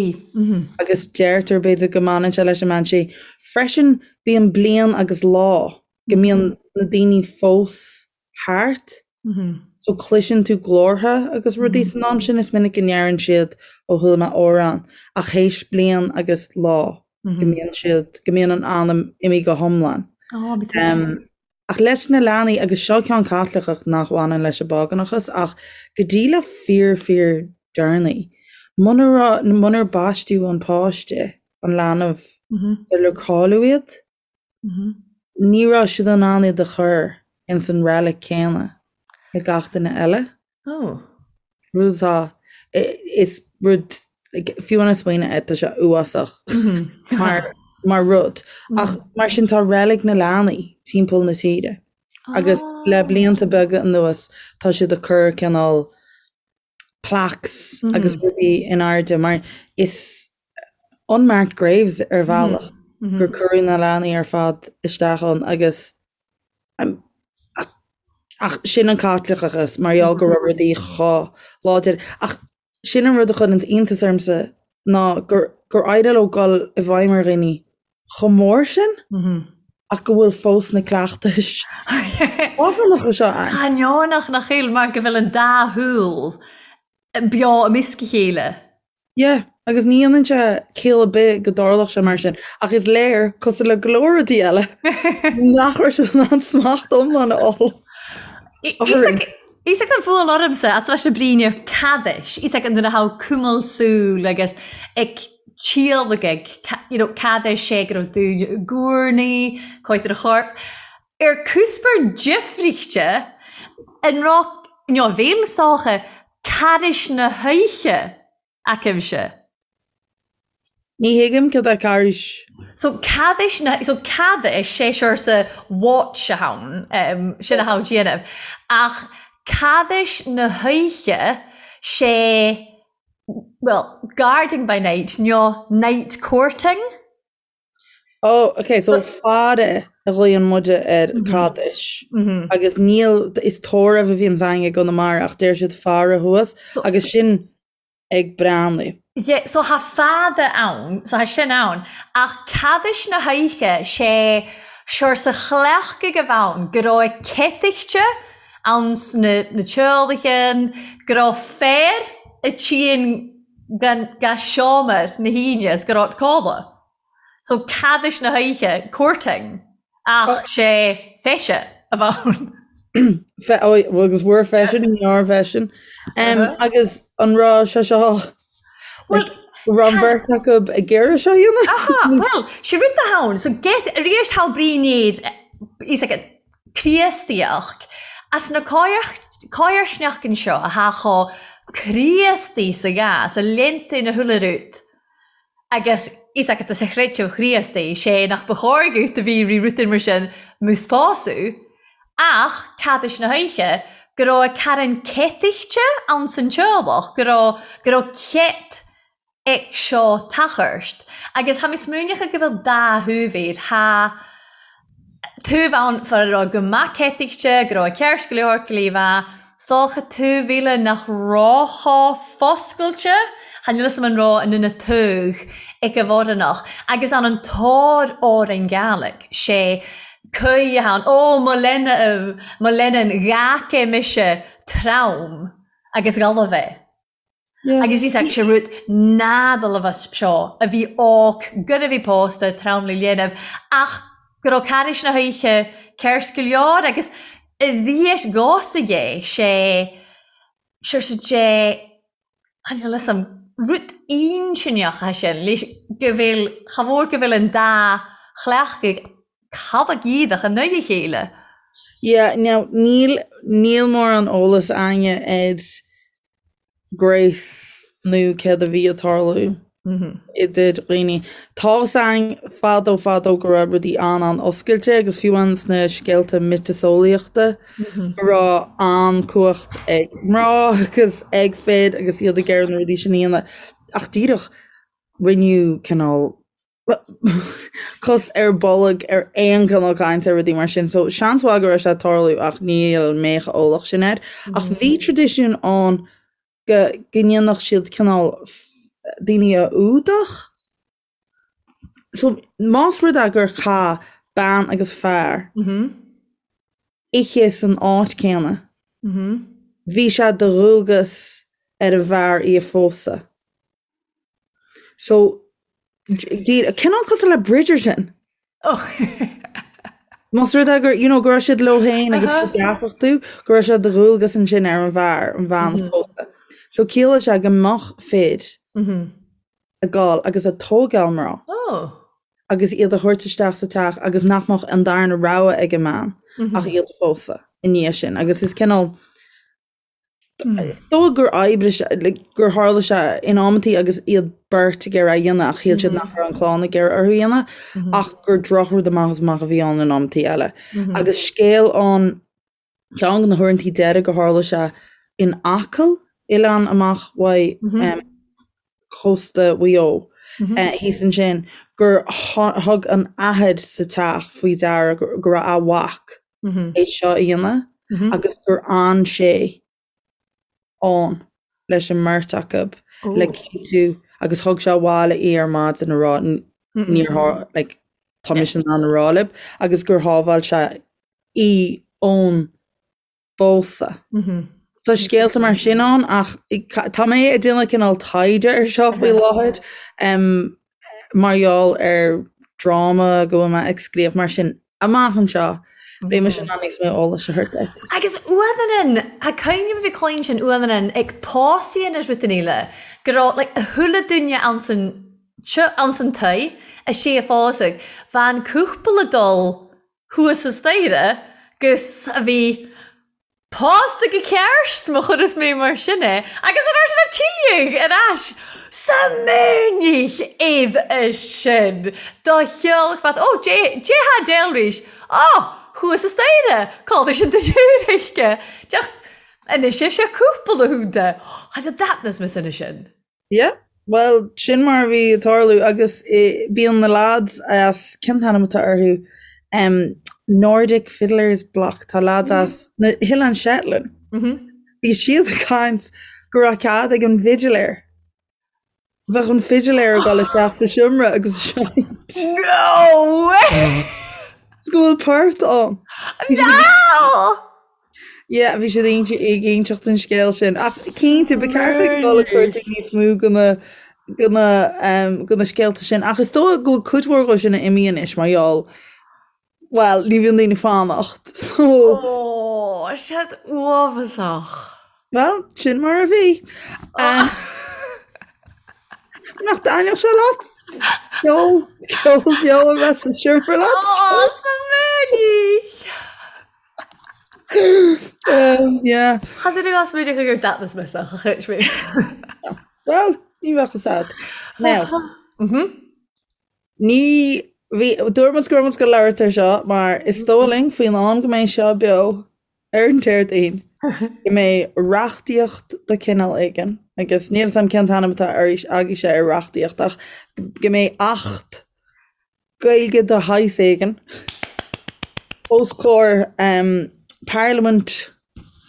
Agus deirtear b'fhéidir go mbaineann sé leis an mbean sí. Freisin bíonn bliain agus lá go mbíonn na daoine fós thart. So cloiseann tú glórtha agus rudaí san am sin, is minic go ndeireann siad ó chuala mé amhrán ach théis bliain agus lá go mbíonn siad, go mbíonn an anam imithe go hiomlán. Ach leis na leanaí, agus seo ceann Caitliceach nach bhaineann leis an bpágánachas, ach go dtí le fíor fíor deireanaí, munar raibh, munar baisteadh an páiste, an leanbh, sular cailleadh iad, ní raibh siad in ann iad a chur ins an reilig céanna le gach duine eile. Oh. Rud atá, is rud, like, fiú an smaoineamh air, tá sé uafásach mar, mar rud. Ach mar sin tá reilig na leanaí timpeall na tíre. Agus le blianta beaga anuas tá siad ag cur cineál plaques agus rudaí in airde mar is unmarked graves ar bhealach gur cuireadh na leanaí ar fad isteach ann agus Ach sin an Caitliceachas, mar gheall go raibh rudaí chomh láidir. Ach sin an rud a chuireann iontas ormsa ná gur gur éirigh leo dul i bhfeidhm ar dhaoine chomh mór sin ach go bhfuil fós na cleachtais phágánacha seo ann. Ainneonach nach bhfuil mar go bhfuil an dá shúil beo i measc a chéile. Yeah. Agus ní dhéanann sé ciall ar bith go dtarlódh sé mar sin, ach is léir, cosúil le go leor rudaí eile, nach raibh siad in ann smacht iomlán a fháil orainn. Is ag an bhuail ormsa at leis an bríne cadais, is ag an duine thá cumal súl agus ag tíolagaidh, you know, cadais sé go raibh dúinn i gcúrnaí, coit ar a chorp. Ar cúspar difríchte, an raibh, you know, bhéal stocha cadais na hoíche. Aicimse. Ní thuigim cad é Carghais. So cadais na, so cadais sé saoirse watch a ann, um, sin a thá déanamh. Ach cadais na hoíche sé, well, guarding by night, nó night courting. Oh, ok, so faire a ghlaonn muide ar cadais. Agus níl, is tórramh a bhíonns againn i gConamara ach deir siad faire thuas agus sin ag breathnú. Yeah, so thá faire ann, so thá sin ann, ach cadais na hoíche sé saoirse chleachtaidh a bheith ann go raibh céatachte ann sna na teaghlaigh, go raibh fear a tchíonn gan ga seomra na haoine is go raibh codladh. So cadais na hoíche, courting, ach sé feise a bheith ann. Fe, ó, agus bhfuair feisean, ní raibh feisean. Um, agus an raibh sé seo Well, raibh an bheirt acu ag iarraidh seo a dhéanamh? Aha, well, sé rud atá ann, so get, arís thá brí níor, is like Críostaíocht, as na cáirsneachtain seo a thá chomh Críostaí sa ghá, sa léinte na huile rud, agus is agat sa chreideamh Chríostaí, sé nach ba chóir dhuit a bhí rí rutain mar sin mo spású, ach cadais na hoíche, go raibh carn céatachte ann san teaghlach, go raibh, go raibh cét ag seo tachairt. Agus tha mi smaoineachadh go bheil dà thaobh air, tha taobh ann far a raibh go maith céatachte, go raibh a ceart go leor go leor 's dócha taobh eile nach raibh chomh foscailte, chan eil fhios a'm an raibh an ina taobh ag a bhforanach, agus an an tóir orainn Gàidhlig, sé caoi a ann, ó mo lena, mo lena ghac mise trom agus ghalbh é. Agus is é sé rud nádalbhas seo a bhí óc gur a bhí pósta trom le dhéanamh ach go raibh carghais na hoíche ceart go leor agus arís dhósaigh é sé sé dé chan eil fhios a'm rud intinneach é sin leis go bhfuil cha mhór go bhfuil an dá chleachtadh cad a gíodach in aghaidh a chéile. Yeah, now níl níl mórán eolas a'inne ar Grace nó céard a bhí ag tarlú idir dhaoine. Tá's a'inn fadó fadó go raibh rudaí an-an-oscailte agus fiú amháin sna scéalta miotaseolaíochta go raibh an-cumhacht ag mná agus ag fir agus iad ag iarraidh na rudaí sin a dhéanamh. Ach díreach rinneadh cineál cos ar bolg ar aon chineál cainte ar rudaí mar sin. So seans mhaith go raibh sé ag tarlú ach níl mé chomh eolach sin air. Ach bhí traidisiún ann go go ndéanfadh siad cineál daoine a fhuadach. So más rud é gur chaith bean agus fear oíche san áit céanna, bhí sé de dhualgas ar an bhfear í a phósadh. So, cineál cosúil le Bridgerton. Oh. Más rud é gur, you know, go raibh siad leo féin agus go gceapfadh tú go raibh sé de dhualgas ansin ar an bhfear, an bhean a phósadh. So ciallaigh sé go mbeadh fir ag gabháil agus ag tógáil mná. Oh. Agus iad a thabhairt isteach sa teach agus nach mbeadh an darna rogha ag an mbean ach iad a phósadh i ndiaidh sin. Agus is cineál Dóigh gur oibrigh sé, like, gur tharla sé in amantaí agus iad beirt ag iarraidh a dhéanamh ach shíl siad nach raibh an chlann ag iarraidh orthu a dhéanamh ach gur drochrud amach is amach a bhí ann in amantaí eile. Agus scéal ann, ceann de na huaireantaí deiridh gur tharla sé in Acaill, oileán amach uaidh cósta Mhaigh Eo, thíos ansin, gur thug an athair sa teach faoi deara go raibh a mhac é seo a dhéanamh agus gur fhan sé ann leis an mbeirt acu le cinntiú agus thug sé abhaile í ar maidin a rá níor like, tá mise in ann a rá libh agus gur shábháil sé í ón bpósadh. Tá scéalta mar sin ann ach tá mé ag déanamh cineál taighde ar seo faoi láthair mar gheall ar dráma go bhfuil mé ag scríobh mar sin amach anseo beidh mise in ann níos mó eolais a thabhairt duit. Agus uamhan tá cuimhne bhí cluin sin uamhan ag pósaí anois rud an fhile go raibh like a chuile duine ann san ann san toigh a sé a phósadh bhean cúpla dul thuas sa staighre 'gus a bhí pósta go ceart, má chuireas mé mar sin é, agus an uair sin a tuilleadh ar ais sa mínich iad sin do cheolfad, ó, Dé, Dé há déalraís, ó, thuas sa staighre, cá bhfuil sin do dúraice, deach, anois é seo cúpla húnta, tha that na sin sin. Yeah, bhuel, sin mar a bhí ag tarlú agus bíonn na lads as, cén t-ainm atá orthu, um, Nordic Fiddlers Bloc, tá lads as na hOileáin Shetland. Bhí siad ag caint go raibh cead ag an bhfidiléir. Bheadh an fidiléir ag dul isteach sa seomra agus ag seinnt. No way! Is go bhfuil port ann. No! Yeah, bhí siad ag inseacht an scéal sin. Ach cinnte, ba cheart ag dul ag cuartú níos mó de na de na um, de na scéalta sin. Ach is dóigh go bhfuil cuid mhór dhó sin imithe anois mar gheall well, ní bhíonn daoine ag fanacht. So Ó, siad uafásach. Well, sin mar a bhí. Um, nach dtaitneodh sé leat? Ceol, ceol beo a bheith sa seomra leat? Ó, sa mínich! Um, yeah. Cha dtuigeann as muid gur datnas mé sa chuid mé. Well, ní bheadh fhios a'd. Now, ní bhí dúirt muid go raibh muid ag labhairt ar seo mar is dóigh linn faoin am go mbeidh seo beo ar an Déardaoin go mbeidh reachtaíocht de chineál éigin agus níl 'fhios a'm cén t-ainm atá agaibhse ar reachtaíocht ach go mbeidh acht Gaeilge de shaghas éigin os comhair Parlaimint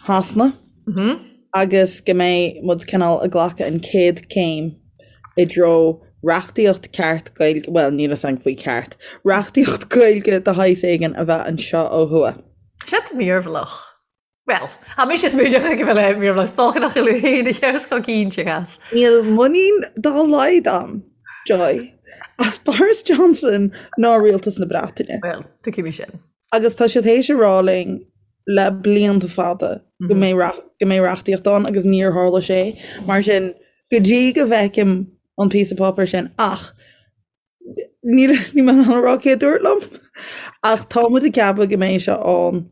Shasana agus go mbeidh muid cineál ag glacadh an chéad chéim i dtreo reachtaíocht ceart Gaeilge, bhuel níl 'fhios a'm faoi ceart, reachtaíocht Gaeilge de shaghas éigin a bheith anseo ó thuaidh. Siad mírbhlach. Bhuel, tá mise smaoineach go bhfuil é mírbhlach, is dócha nach bhfuil féin a cheart chomh cinnte as. Níl muinín dá laghad a'm, Joy, as Boris Johnson ná rialtas na Breataine. Bhuel, tuigim sin. Agus tá siad théis a rá linn le blianta fada go mbeidh go mbeidh reachtaíocht ann agus níor tharla sé. Mar sin, go dtí go bhfeicim an píosa páipéir sin ach níl níl mé in ann a rá cé a dúirt liom ach tá muid ag ceapadh go mbeidh sé ann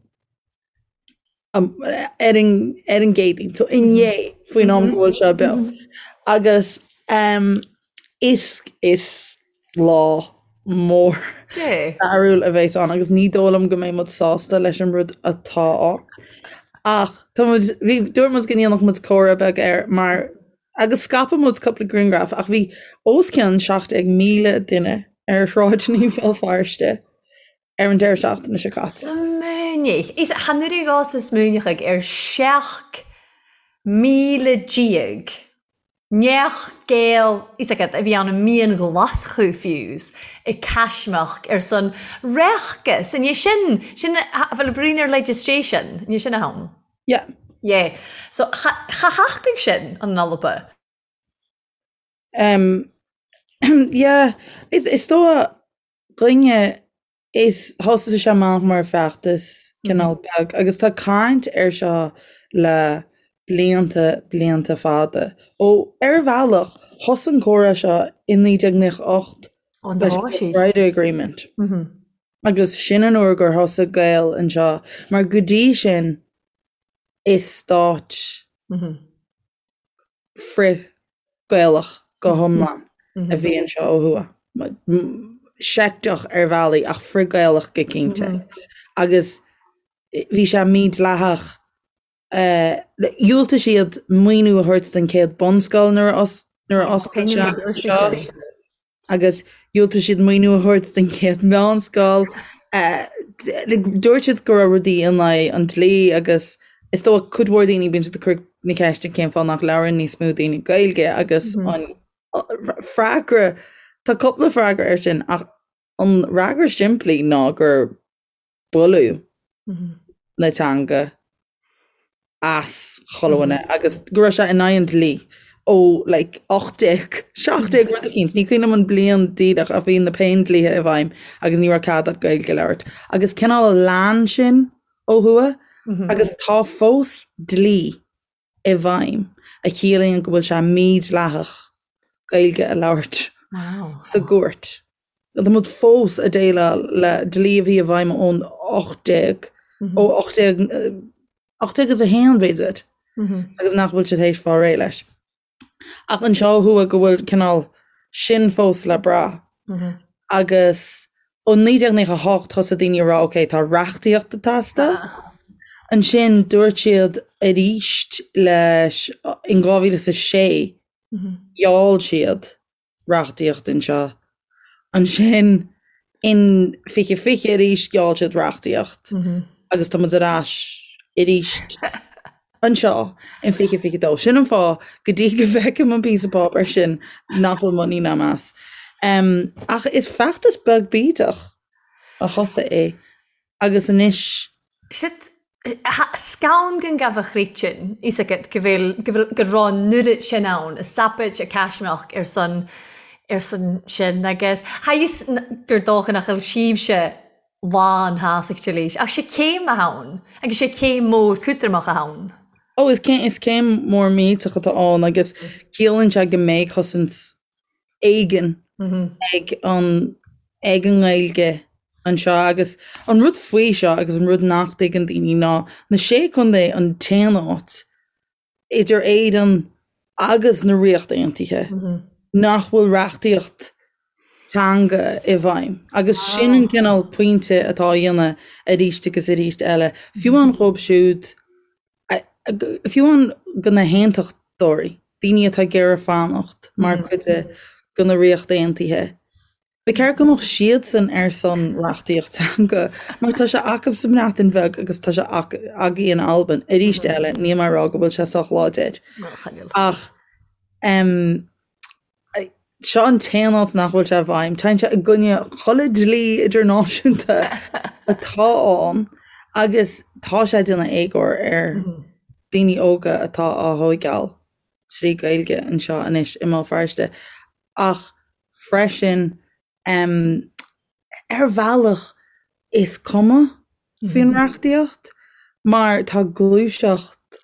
ar an ar an gCéadaoin, so inné faoin am go bhfuil seo beo. Agus um, is is lá mór stairiúil a bheas ann agus ní dóigh liom go mbeidh muid sásta leis an rud atá ann. Ach tá muid bhí dúirt muid go ndéanfadh muid comhrá beag air mar agus scaipfidh muid cúpla grianghraf ach bhí os cionn 17,000 duine ar shráideanna Bhéal Feirste ar an deireadh seachtaine seo caite. Smaoinigh. Is chan oireadh dhá sa smaoineachaidh ar 17,000 neach Gael is agat a bhí ann i mí an Ghlaschú fiú's i Caismeach ar son reachtas. An é sin, sin a bhfuil bruíon ar legislation, an é sin a thonn? Yeah. Yeah. So cha shocraigh sin an Alba. Um, yeah, is, is dóigh dhuine is thosaigh sé amach mar feachtas cineál beag agus tá caint air seo le blianta, blianta fada. Ó, ar bhealach, thosaigh an comhrá seo i 1998 leis an Good Friday Agreement. Agus sin an uair gur thosaigh Gaeil anseo, mar go dtí sin is stát frith-Ghaelach go hiomlán a bhí anseo ó thuaidh. Seicteach ar bhealaí ach frith-Ghaelach go cinnte. Agus bhí sé mídhleathach. Dhiúltaigh siad maoiniú a thabhairt don chéad bunscoil nuair a oscail sé anseo. agus dhiúltaigh siad maoiniú a thabhairt don chéad mheánscoil. Dúirt siad go raibh rudaí in aghaidh an dlí agus is dóigh cuid mhór daoine bíonn siad ag cur na ceiste cén fáth nach labhrann níos mó daoine Gaeilge agus an freagra, tá cúpla freagra air sin ach an fhreagra simplí ná gur buaileadh na teanga as. chuile dhuine agus go raibh sé in aghaidh an dlí ó like 1817 rud eicínt, ní cuimhin liom an bliain díreach ach bhí na Péindlíthe i bhfeidhm agus ní raibh cead agat Gaeilge a labhairt. Agus cineál lean sin ó thuaidh agus tá fós dlí i bhfeidhm a chiallaíonn go bhfuil sé mídhleathach Gaeilge a labhairt sa gcúirt. Tá muid fós ag déileáil le dlí a bhí i bhfeidhm ón 18, ó 18, 1801 b'fhéidir, agus nach bhfuil siad théis fáil réidh leis. Ach anseo ó thuaidh go bhfuil cineál sin fós le brath. Agus ó 1998 thosaigh daoine a rá ok tá reachtaíocht ag teastáil. Ansin dúirt siad arís leis in 2006 gheall siad reachtaíocht anseo. Ansin in 2020 arís gheall siad reachtaíocht agus tá muid ar ais arís anseo in 2022. Sin an fáth go dtí go bhfeicim an píosa páipéir sin nach bhfuil muinín agam as. Ach is feachtas beag bídeach a thosaigh é agus anois. Shit, scann gon gabha chréitinn, fhios agat go bhfuil, go bhfuil, go raibh an oiread sin ann, a sapaid, a caismeach ar son, ar son sin agus tha fhios gur dócha nach bhfuil sibhse lán shásacht leis ach sé céim atá ann agus sé céim mór cútramach atá ann. Ó is céim, is céim mór millteach atá ann agus ciallaíonn sé go mbeidh cosaint éigin ag an ag an nGaeilge anseo agus an rud faoi seo agus an rud nach dtuigeann daoine ná na Sé Contae an t-aon áit idir Éirinn agus na Ríocht Aontaithe nach bhfuil reachtaíocht teanga i bhfeidhm agus sin an cineál pointe atá á dhéanamh arís agus arís eile fiú amháin dhóibh siúd Fiú amháin go na haontachtóirí, daoine atá ag iarraidh fanacht mar chuid de na Ríocht Aontaithe, ba cheart go mbeadh siadsan ar son reachtaíocht teanga mar tá sé acu sa mBreatain Bheag agus tá sé agaí in Albain. Arís eile, níl mé ag rá go bhfuil sé sách láidir ach Seo an t-aon áit nach bhfuil sé i bhfeidhm. Téann sé i gcoinne chuile dlí idirnáisiúnta atá ann agus tá sé ag déanamh éagóir ar daoine óga atá á thóigeáil trí Gaeilge anseo anois i mBéal Feirste. Ach freisin, ar bhealach is cuma faoin reachtaíocht mar tá gluaiseacht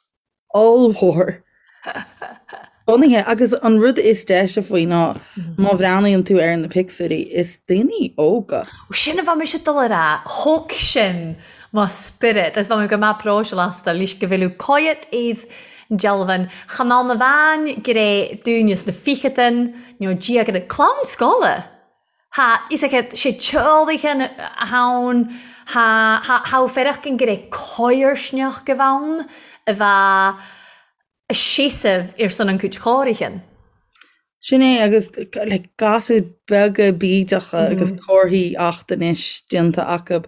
ollmhór bunaithe agus an rud is deise faoi ná má bhreathnaíonn tú ar na pictiúirí is daoine óga. Sin a bheadh mise ag dul a rá, thóg sin mo spiorad agus bheadh mé go maith próiseáil astu leis go bhfuil coyet iad dealbhan cha mbeadh na bhean gré dúinne sna ficheadain nó diaga clann scoile. Tha fhios agat sé teolaighean a ann, tha, tha, tha fearacht an gré coirsneach go bheann a bheadh a seasamh ar son an cúit chóirighean. Sin é agus like gasúir beaga bídeacha agus comharthaí Acht Anois déanta acu.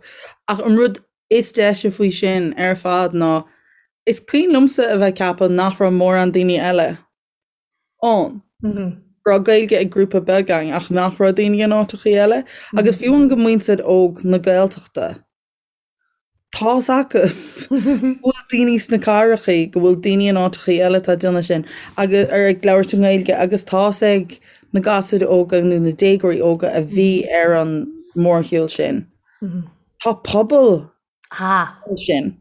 Ach an rud is deise faoi sin ar fad ná is cuimhin liomsa a bheith ag ceapadh nach raibh mórán daoine eile ann. Go raibh Gaeilge ag grúpa beag againn ach nach raibh daoine in áiteachaí eile. Agus fiú amháin go muintir óg na Gaeltachta, tá's acu go bhfuil daoine sna cathrachaí, go bhfuil daoine in áiteachaí eile atá ag déanamh sin agus ar ag labhairt i nGaeilge agus tá's ag na gasúir óga nó na déagóirí óga a bhí ar an mórshiúl sin. Tá pobal sin.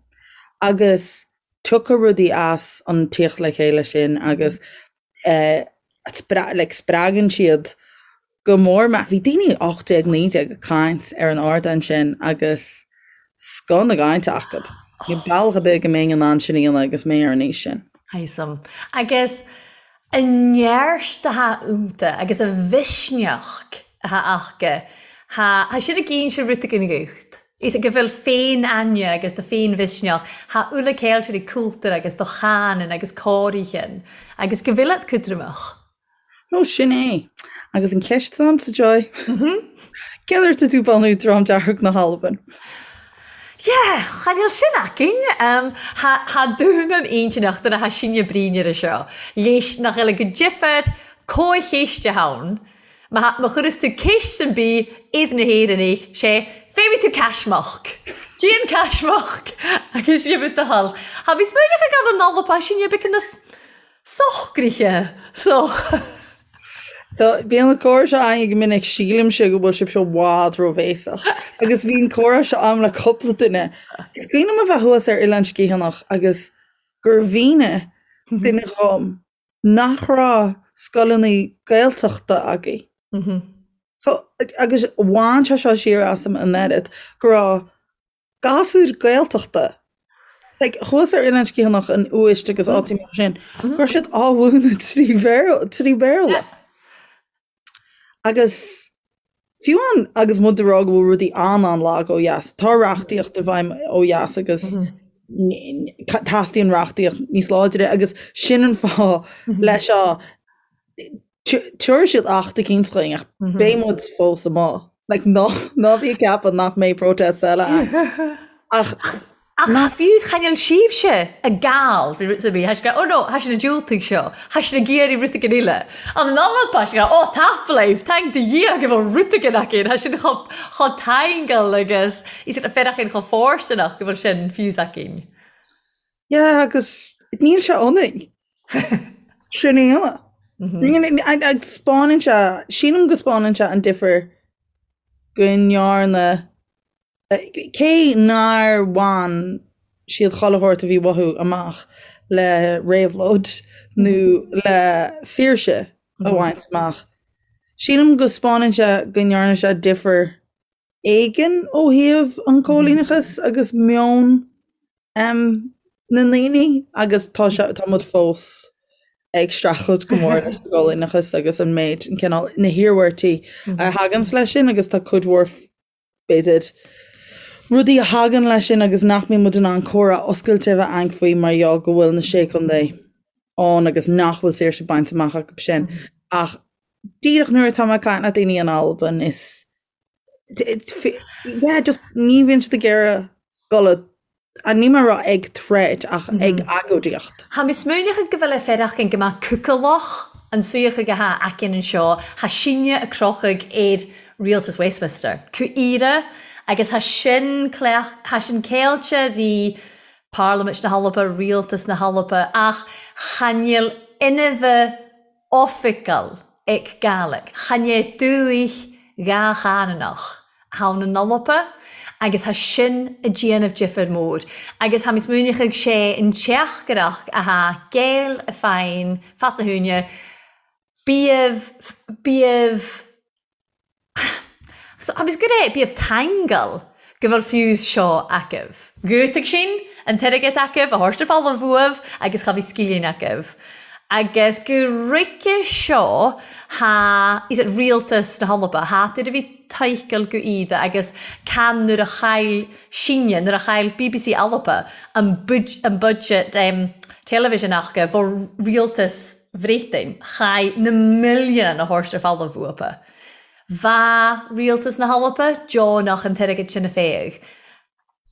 Agus tiocfaidh rudaí as an tíocht le chéile sin agus like spreagann siad go mór mé. Bhí daoine 18, 19 ag caint ar an ardán sin agus scoth na gcainte acu. Níl bealach ar bith go mbeinn in ann sin a dhéanamh agus mé ar an aois sin. Thaism. Agus an neart atá iontu agus an mhisneach atá acu, tá sin ag inse rud éigin dhuit. Is go bhfuil féin-aithne agus do féin-mhisneach, tha uile ceilteoirí cultúr agus do chanann agus cóirithean agus go bhfuil at cútramach. Ó, sin é. Agus an cheist atá agamsa, Joy? Cén uair atá tú bunú Dream Dearg na hAlban? Yeah, cha níl sin againn. Tha tha dún an intinneach do na tha sinne bruíne seo. Léis nach eile go difear comhcheist a ann. Má chuireas tú ceist san bith iad na hÉireannaigh, sé, féadfaidh tú caismeach! Déan caismeach! Agus gheibh do thoil. Tha mi smaoineachadh agan an Alba sin a bheadh ina socraithe so. So, bíonn an comhrá seo againn go minic, sílimse go bhfuil sibhse i bhfad róbhéasach. Agus bhí an comhrá seo agam le cúpla duine. Is cuimhin liom a bheith thuas ar Oileán Sgitheanach agus gur mhínigh duine dhom nach raibh scoileanna Gaeltachta agaibh. So, agus bhain sé seo siar asam an oiread go raibh gasúir Gaeltachta, like, thuas ar Oileán Sgitheanach an Uist agus áiteanna mar sin, go raibh siad á mhúineadh trí Bhéarla, trí Bhéarla. Agus fiú amháin agus muid ag rá go bhfuil rudaí an-an-lag ó dheas, tá reachtaíocht i bhfeidhm ó dheas agus teastaíonn reachtaíocht níos láidre agus sin an fáth leis seo Tabharfaidh siad acht eicínt chugainn ach beidh muid fós amuigh. Like, ná, ná bí ag ceapadh nach mbeidh protests eile ann. Ach, Ach fiú chan eil sibhse ag gabhail faoi rud ar bith, tha sinn ag ràdh, oh no, tha sinn ag diúltaigh seo, tha sinn ag iarraidh rud eigin eile. An an Alba, tha sinn ag ràdh, oh tapadh leibh, taing do Dhia go bhfuil rud eigin againn, tha sinn chomh, chomh taingeal agus is iad féarachain chomh fóirsteanach go bhfuil sin fiús againn. Yeah, agus níl sé ionainn. Sin é ionadh. Agus 'spáineann sé, sílim go 'spáineann sé an difear go ndearna, cé nár bhain siad chuile shórt a bhí uathu amach le réabhlóid nó le saoirse a bhaint amach, sílim go 'spáineann sé go ndearna sé difear éigin ó thaobh an choilíneachas agus meon na ndaoine agus tá sé, tá muid fós ag streachailt go mór leis an gcoilíneachas agus an méid, an cineál, na hiarmhairtí a thaganns leis sin agus tá cuid mhór, b'fhéidir, rudaí a thagann leis sin agus nach mbíonn muid in ann comhrá oscailte a bheith againn faoi mar gheall go bhfuil na Sé Chontae ann agus nach bhfuil saoirse bainte amach acu sin. Ach díreach nuair atá mé ag caint le daoine in Albain is yeah, just ní bhíonn siad ag iarraidh dul a, níl mé ag rá ag troid ach ag agóidíocht. Tha mi smaoineachadh gu bheil e faireachdain gu math cúgalach an suidheachadh a tha againn annseo, tha sinne a' crochadh air Rialtas Westminster, cu Ìre, agus tha sin cleach, tha sin ceilte ri Pàrlamaint na h-Alba, Rialtas na h-Alba, ach chan eil inmhe oifigeil aig Gàidhlig. Chan e dùthaich dhà-chananach ann an Alba agus tha sin a' dèanamh difir mòr. Agus tha mi smaoineachadh 'sé an teachtair-reachd a tha Gael a fàghain fad na h-uaine, bíodh, bíodh, So, agus go raibh, bíodh taingeal go bhfuil fiús seo agaibh. Dhiúltaigh sinn an t-airgead agaibh a thabhairt ar folamh uaibh agus cha bhí scilling agaibh. Agus go roice seo tha is it rialtas na hAlba, tha iad a bhí toicheall go iad agus can nuair a chaill sinne, nuair a chaill bbc Alba an an budget television aca bho rialtas Bhréatainn, chaith na milliúin a thabhairt ar folamh uathu. Bha rialtas na hAlba deonach an t-airgead sin a phéadh.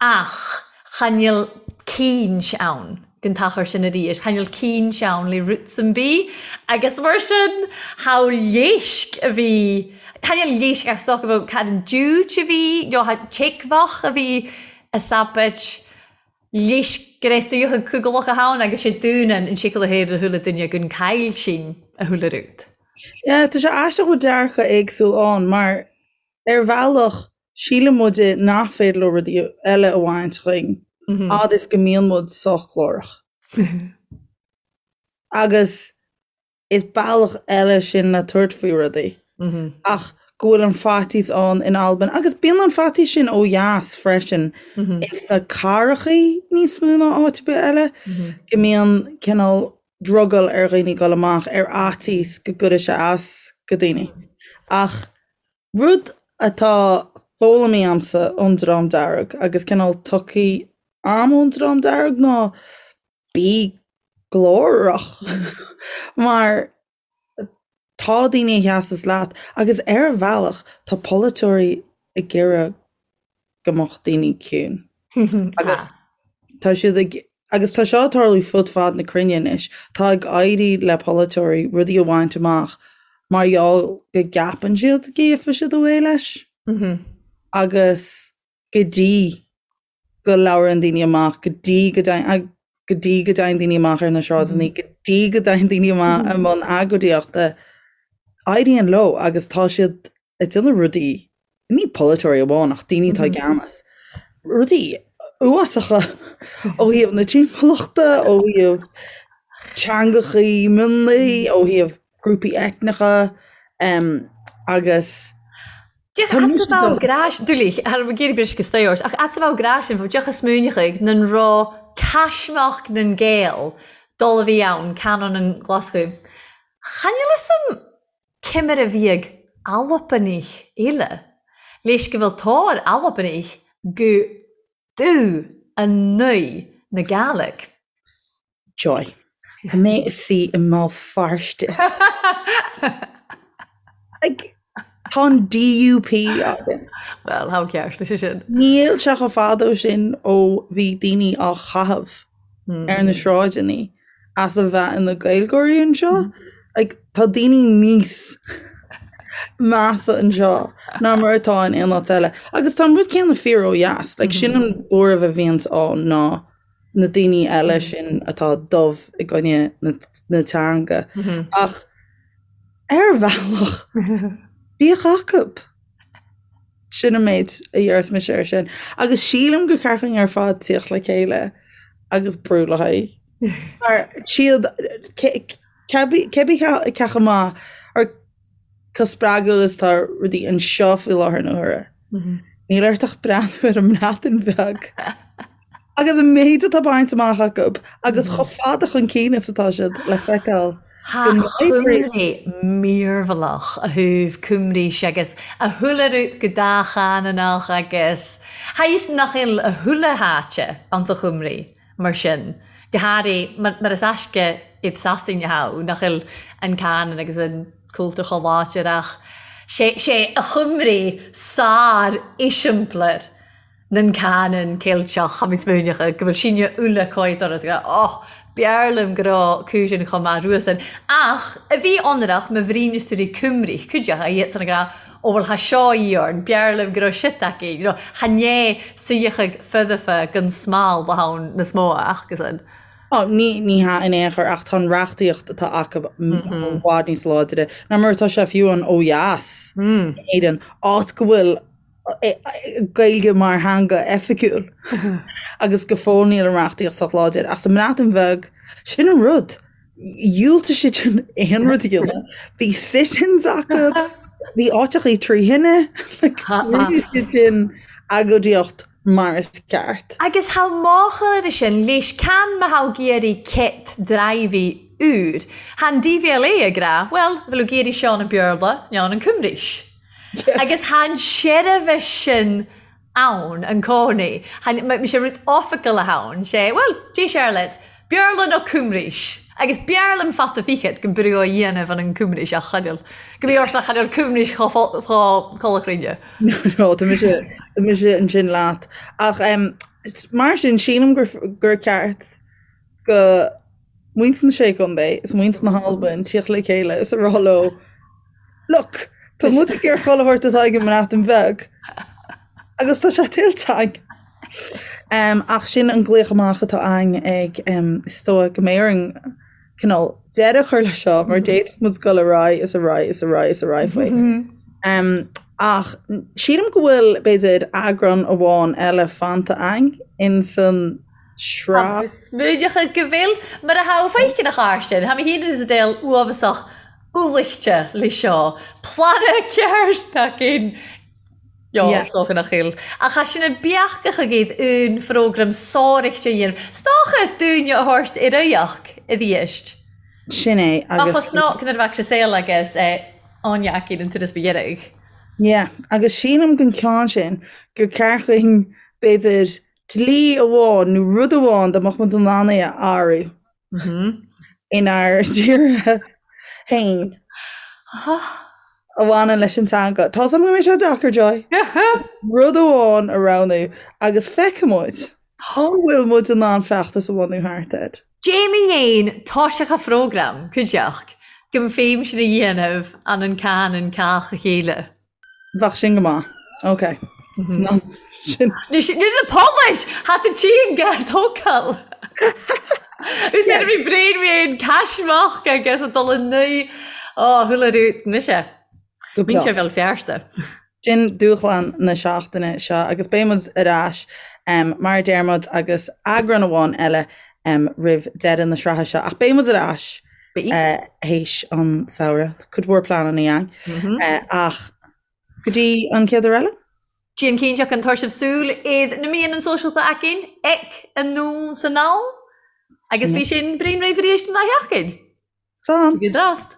Ach chan eil caoint ann gon t-achar sin arís, chan eil caoint ann le rud sam bith agus mar sin tha leisc a bhí, chan eil leisc ach is dócha go bhfuil cad an diúit a bhí nó tha teagmhach a bhí a sabait Leis go raibh suíochán cúigealach ann agus sé dúnann an séicil a thaobh le húlla duine gun caill sin a húlla rút. Yeah, tá sé aisteach go bhfuil dearcadh éagsúil ann mar ar bhealach síleann muide nach féidir leo rudaí eile a bhaint dhínn fhad is go mbíonn muid sách glórach. Agus Is bealach eile sin le tabhairt faoi rudaí. Ach go bhfuil an faitíos ann in Albain, agus bíonn an faitíos sin ó dheas freisin, ins na cathrachaí níos mó ná áit ar bith eile, go mbíonn cineál drogall ar dhaoine dul amach ar fhaitíos go gcuirfidh sé as go daoine. Ach rud atá foghlamtha a'msa ón Dream Dearg agus cineál tugtha a'm ón Dream Dearg ná bí glórach mar tá daoine a sheasas leat agus ar bhealach tá polaiteoirí ag iarraidh go mbeadh daoine ciúin agus tá siad ag agus tá seo ag tarlú fud fad na cruinne anois tá ag éirí le polaiteoirí rudaí a bhaint amach mar gheall go gceapann siad go gheobhaidh siad away leis agus go dtí. go labhrann daoine amach, go dtí go dtéann go dtí go dtéann daoine amach ar na sráideanna, go dtí go dtéann daoine amach i mbun agóidíochta, éiríonn leo agus tá siad ag déanamh rudaí, ní polaiteoirí amháin ach daoine atá i gceannas, rudaí uafásacha ó thaobh na timpeallachta, ó thaobh teangachaí mionlaigh, ó thaobh grúpaí eitneacha agus Deoch Tá mise dom. Gráis, dúlaigh, thar mo géirí bris agus staors, ach at bheadh grá sin, bheadh deoch a smaoineochaidh nan raibh caismeach nan Gael dul a bhí ann, canóin an Ghlaschú. Chan fhuil fhios a'm cé mar a bhíodh Albannaigh eile, leis go bhfuil tóir Albannaigh go dubh a naoi na Gàidhlig. Joy. Tá mé i suí i mBéal Feirste. Like, tá an DUP againn. Well, how ceart leis sin. Níl sé chomh fada ó sin ó bhí daoine á chaitheamh ar na sráideanna as a bheith ina Gaeilgeoirí anseo. Like, tá daoine níos measa anseo ná mar atá in aon áit eile. Agus tá an rud céanna fíor ó dheas. Like, sin an buaireamh a bhíonns ann ná na daoine eile sin atá dubh i gcoinne na, na teanga. Ach ar bhealach, bíodh acu. Sin an méid a dhéarfas mise air sin. Agus sílim gur ceart dúinn ar fad tíocht le chéile agus brú le haghaidh. Mar siad cébí cé chomh maith or chomh spreagúil is atá rudaí anseo faoi láthair na huaire. Níl ort ach breathnú ar an mBreatain Bheag agus an méid atá bainte amach acu agus chomh fada chun cinn is atá siad le feiceáil. Tha Cymru mearbhlach a thaobh Cymraís agus a chuile rud go dátheangach agus tha fhios nach eil a chuile háite anns a Chymru mar sin, go hairí mar is aisce iad Sasain a thogh nach eil an canann agus an cultúr chomh láidir ach sé sé a Chymru sár-eiseamplar nan canann Ceilteach, tha mi smaoineachadh go bhfuil sinne uile coid doras ag rá oh, b'fhearr liom go raibh cúiseanna chomh maith ruasan. Ach a bhí ionrach ma bhríneas tú rí Cymru, cuideachta iad san ag rá ó bhuel tha seo iorn, b'fhearr liom go raibh shit aici, you know, tha né suíochadh feudafa gon smal ba ann na smó acusan. Ó, ní, ní hea in aon chor ach tá an reachtaíocht atá acu i bhfad níos láidre ná mar atá sé fiú an ó dheas in Éirinn, áit go bhfuil Gaeilge mar theanga oifigiúil agus go fóill níl an reachtaíocht sách láidir. Ach sa mBreatain Bheag, sin an rud. Dhiúltaigh siad sin aon rud a dhéanamh. Bhí sit-ins acu, bhí áiteachaí tri thine, rinne siad sin agóidíocht mar is ceart. Agus tha mòchadh air sin leis can ma tha thu ag iarraidh cit draighbhidh úr. Tha an DVLA ag ràdh, bhuel, bheil thu ag iarraidh seo an Beurla, no an Cymraís. Agus tha an seirbhis sin ann an cònaí. Tha sé rud oifigeil ann, sé, bhuel, dè Charlotte, Beurla no Cymraís? Agus b'fhearr liom fata fichead gun brú á dhéanamh an an Cymraís ach chan eil, go mbí ortsa chan eil Cymraís chomh cholachrainne. No, no, tá mise, tá mise ansin leat. Ach em, mar sin, sílim gur, gur ceart go muintir na Sé Chontae is muintir na hAlban tíocht le chéile is a rá leo, Look, tá muid ag iarraidh chuile shórt atá ag an mBreatain Bheag agus tá sé tuillte againn. Um, ach sin an glaoch amach atá againn ag um, is dóigh go mbeidh orainn cineál deireadh a chur leis seo mar d'fhéadfadh muid dul ar aghaidh is ar aghaidh is ar aghaidh is ar aghaidh faoi. Um, ach sílim go bhfuil b'fhéidir eagrán amháin eile fanta againn in san sraith. Smaoineachadh go bhfuil mar a tha feiceann a chairde, Tha mi fhìn is a deil uabhasach uallaichte le seo. Planadh ceart againn! Jo, is dócha nach eil. Ach tha sinn a' beachadh agaibh un phrógram sàraichte a dhéanamh. 'S dòcha dúinne a thabhairt ar aghaidh a-rìst. Sin é, agus. Ach chosnódh nuair a bheadh Chriselle agus Áine againn an turas ba dheiridh. Yeah, agus sílim gon ceann sin gur ceart dhuinn b'fhéidir dlí amháin nó rud amháin dá mbeadh muid in ann é a athrú. Inár dtíortha féin a bhaineann leis an teanga. Tá a fhios agam go mbeidh sé deacair, Joy. Rud amháin a roghnú agus feicfidh muid an bhfuil muid in ann feachtas a bhunú thart air. Jamie Dhéin toiseach a phrógram, cuideachd, go mb'fhéim sin a dhéanamh an an can an cách a chéile. Bheadh sin go maith. Ok. Sin. Ní sin na poblais! Hat an tíonga tógáil. Úsáid bhí braon bhí caismeach agus a dul i nui. Ó, chuala rút mise. Go breá. Muintir Bhéal Feirste. Sin dúshlán na seachtaine seo agus beidh muid ar ais mar a deir muid agus eagrán amháin eile roimh deireadh na sraithe seo ach beidh muid ar ais théis an samhradh. Cuid mhór pleananna againn ach go dtí an chéad uair eile. Déan cinnte an tabhair sibh súil iad na míonna sóisialta againn ag anonn 's anall agus bhí sin braon réidh arís an dá sheachtain. Slán. Go drast.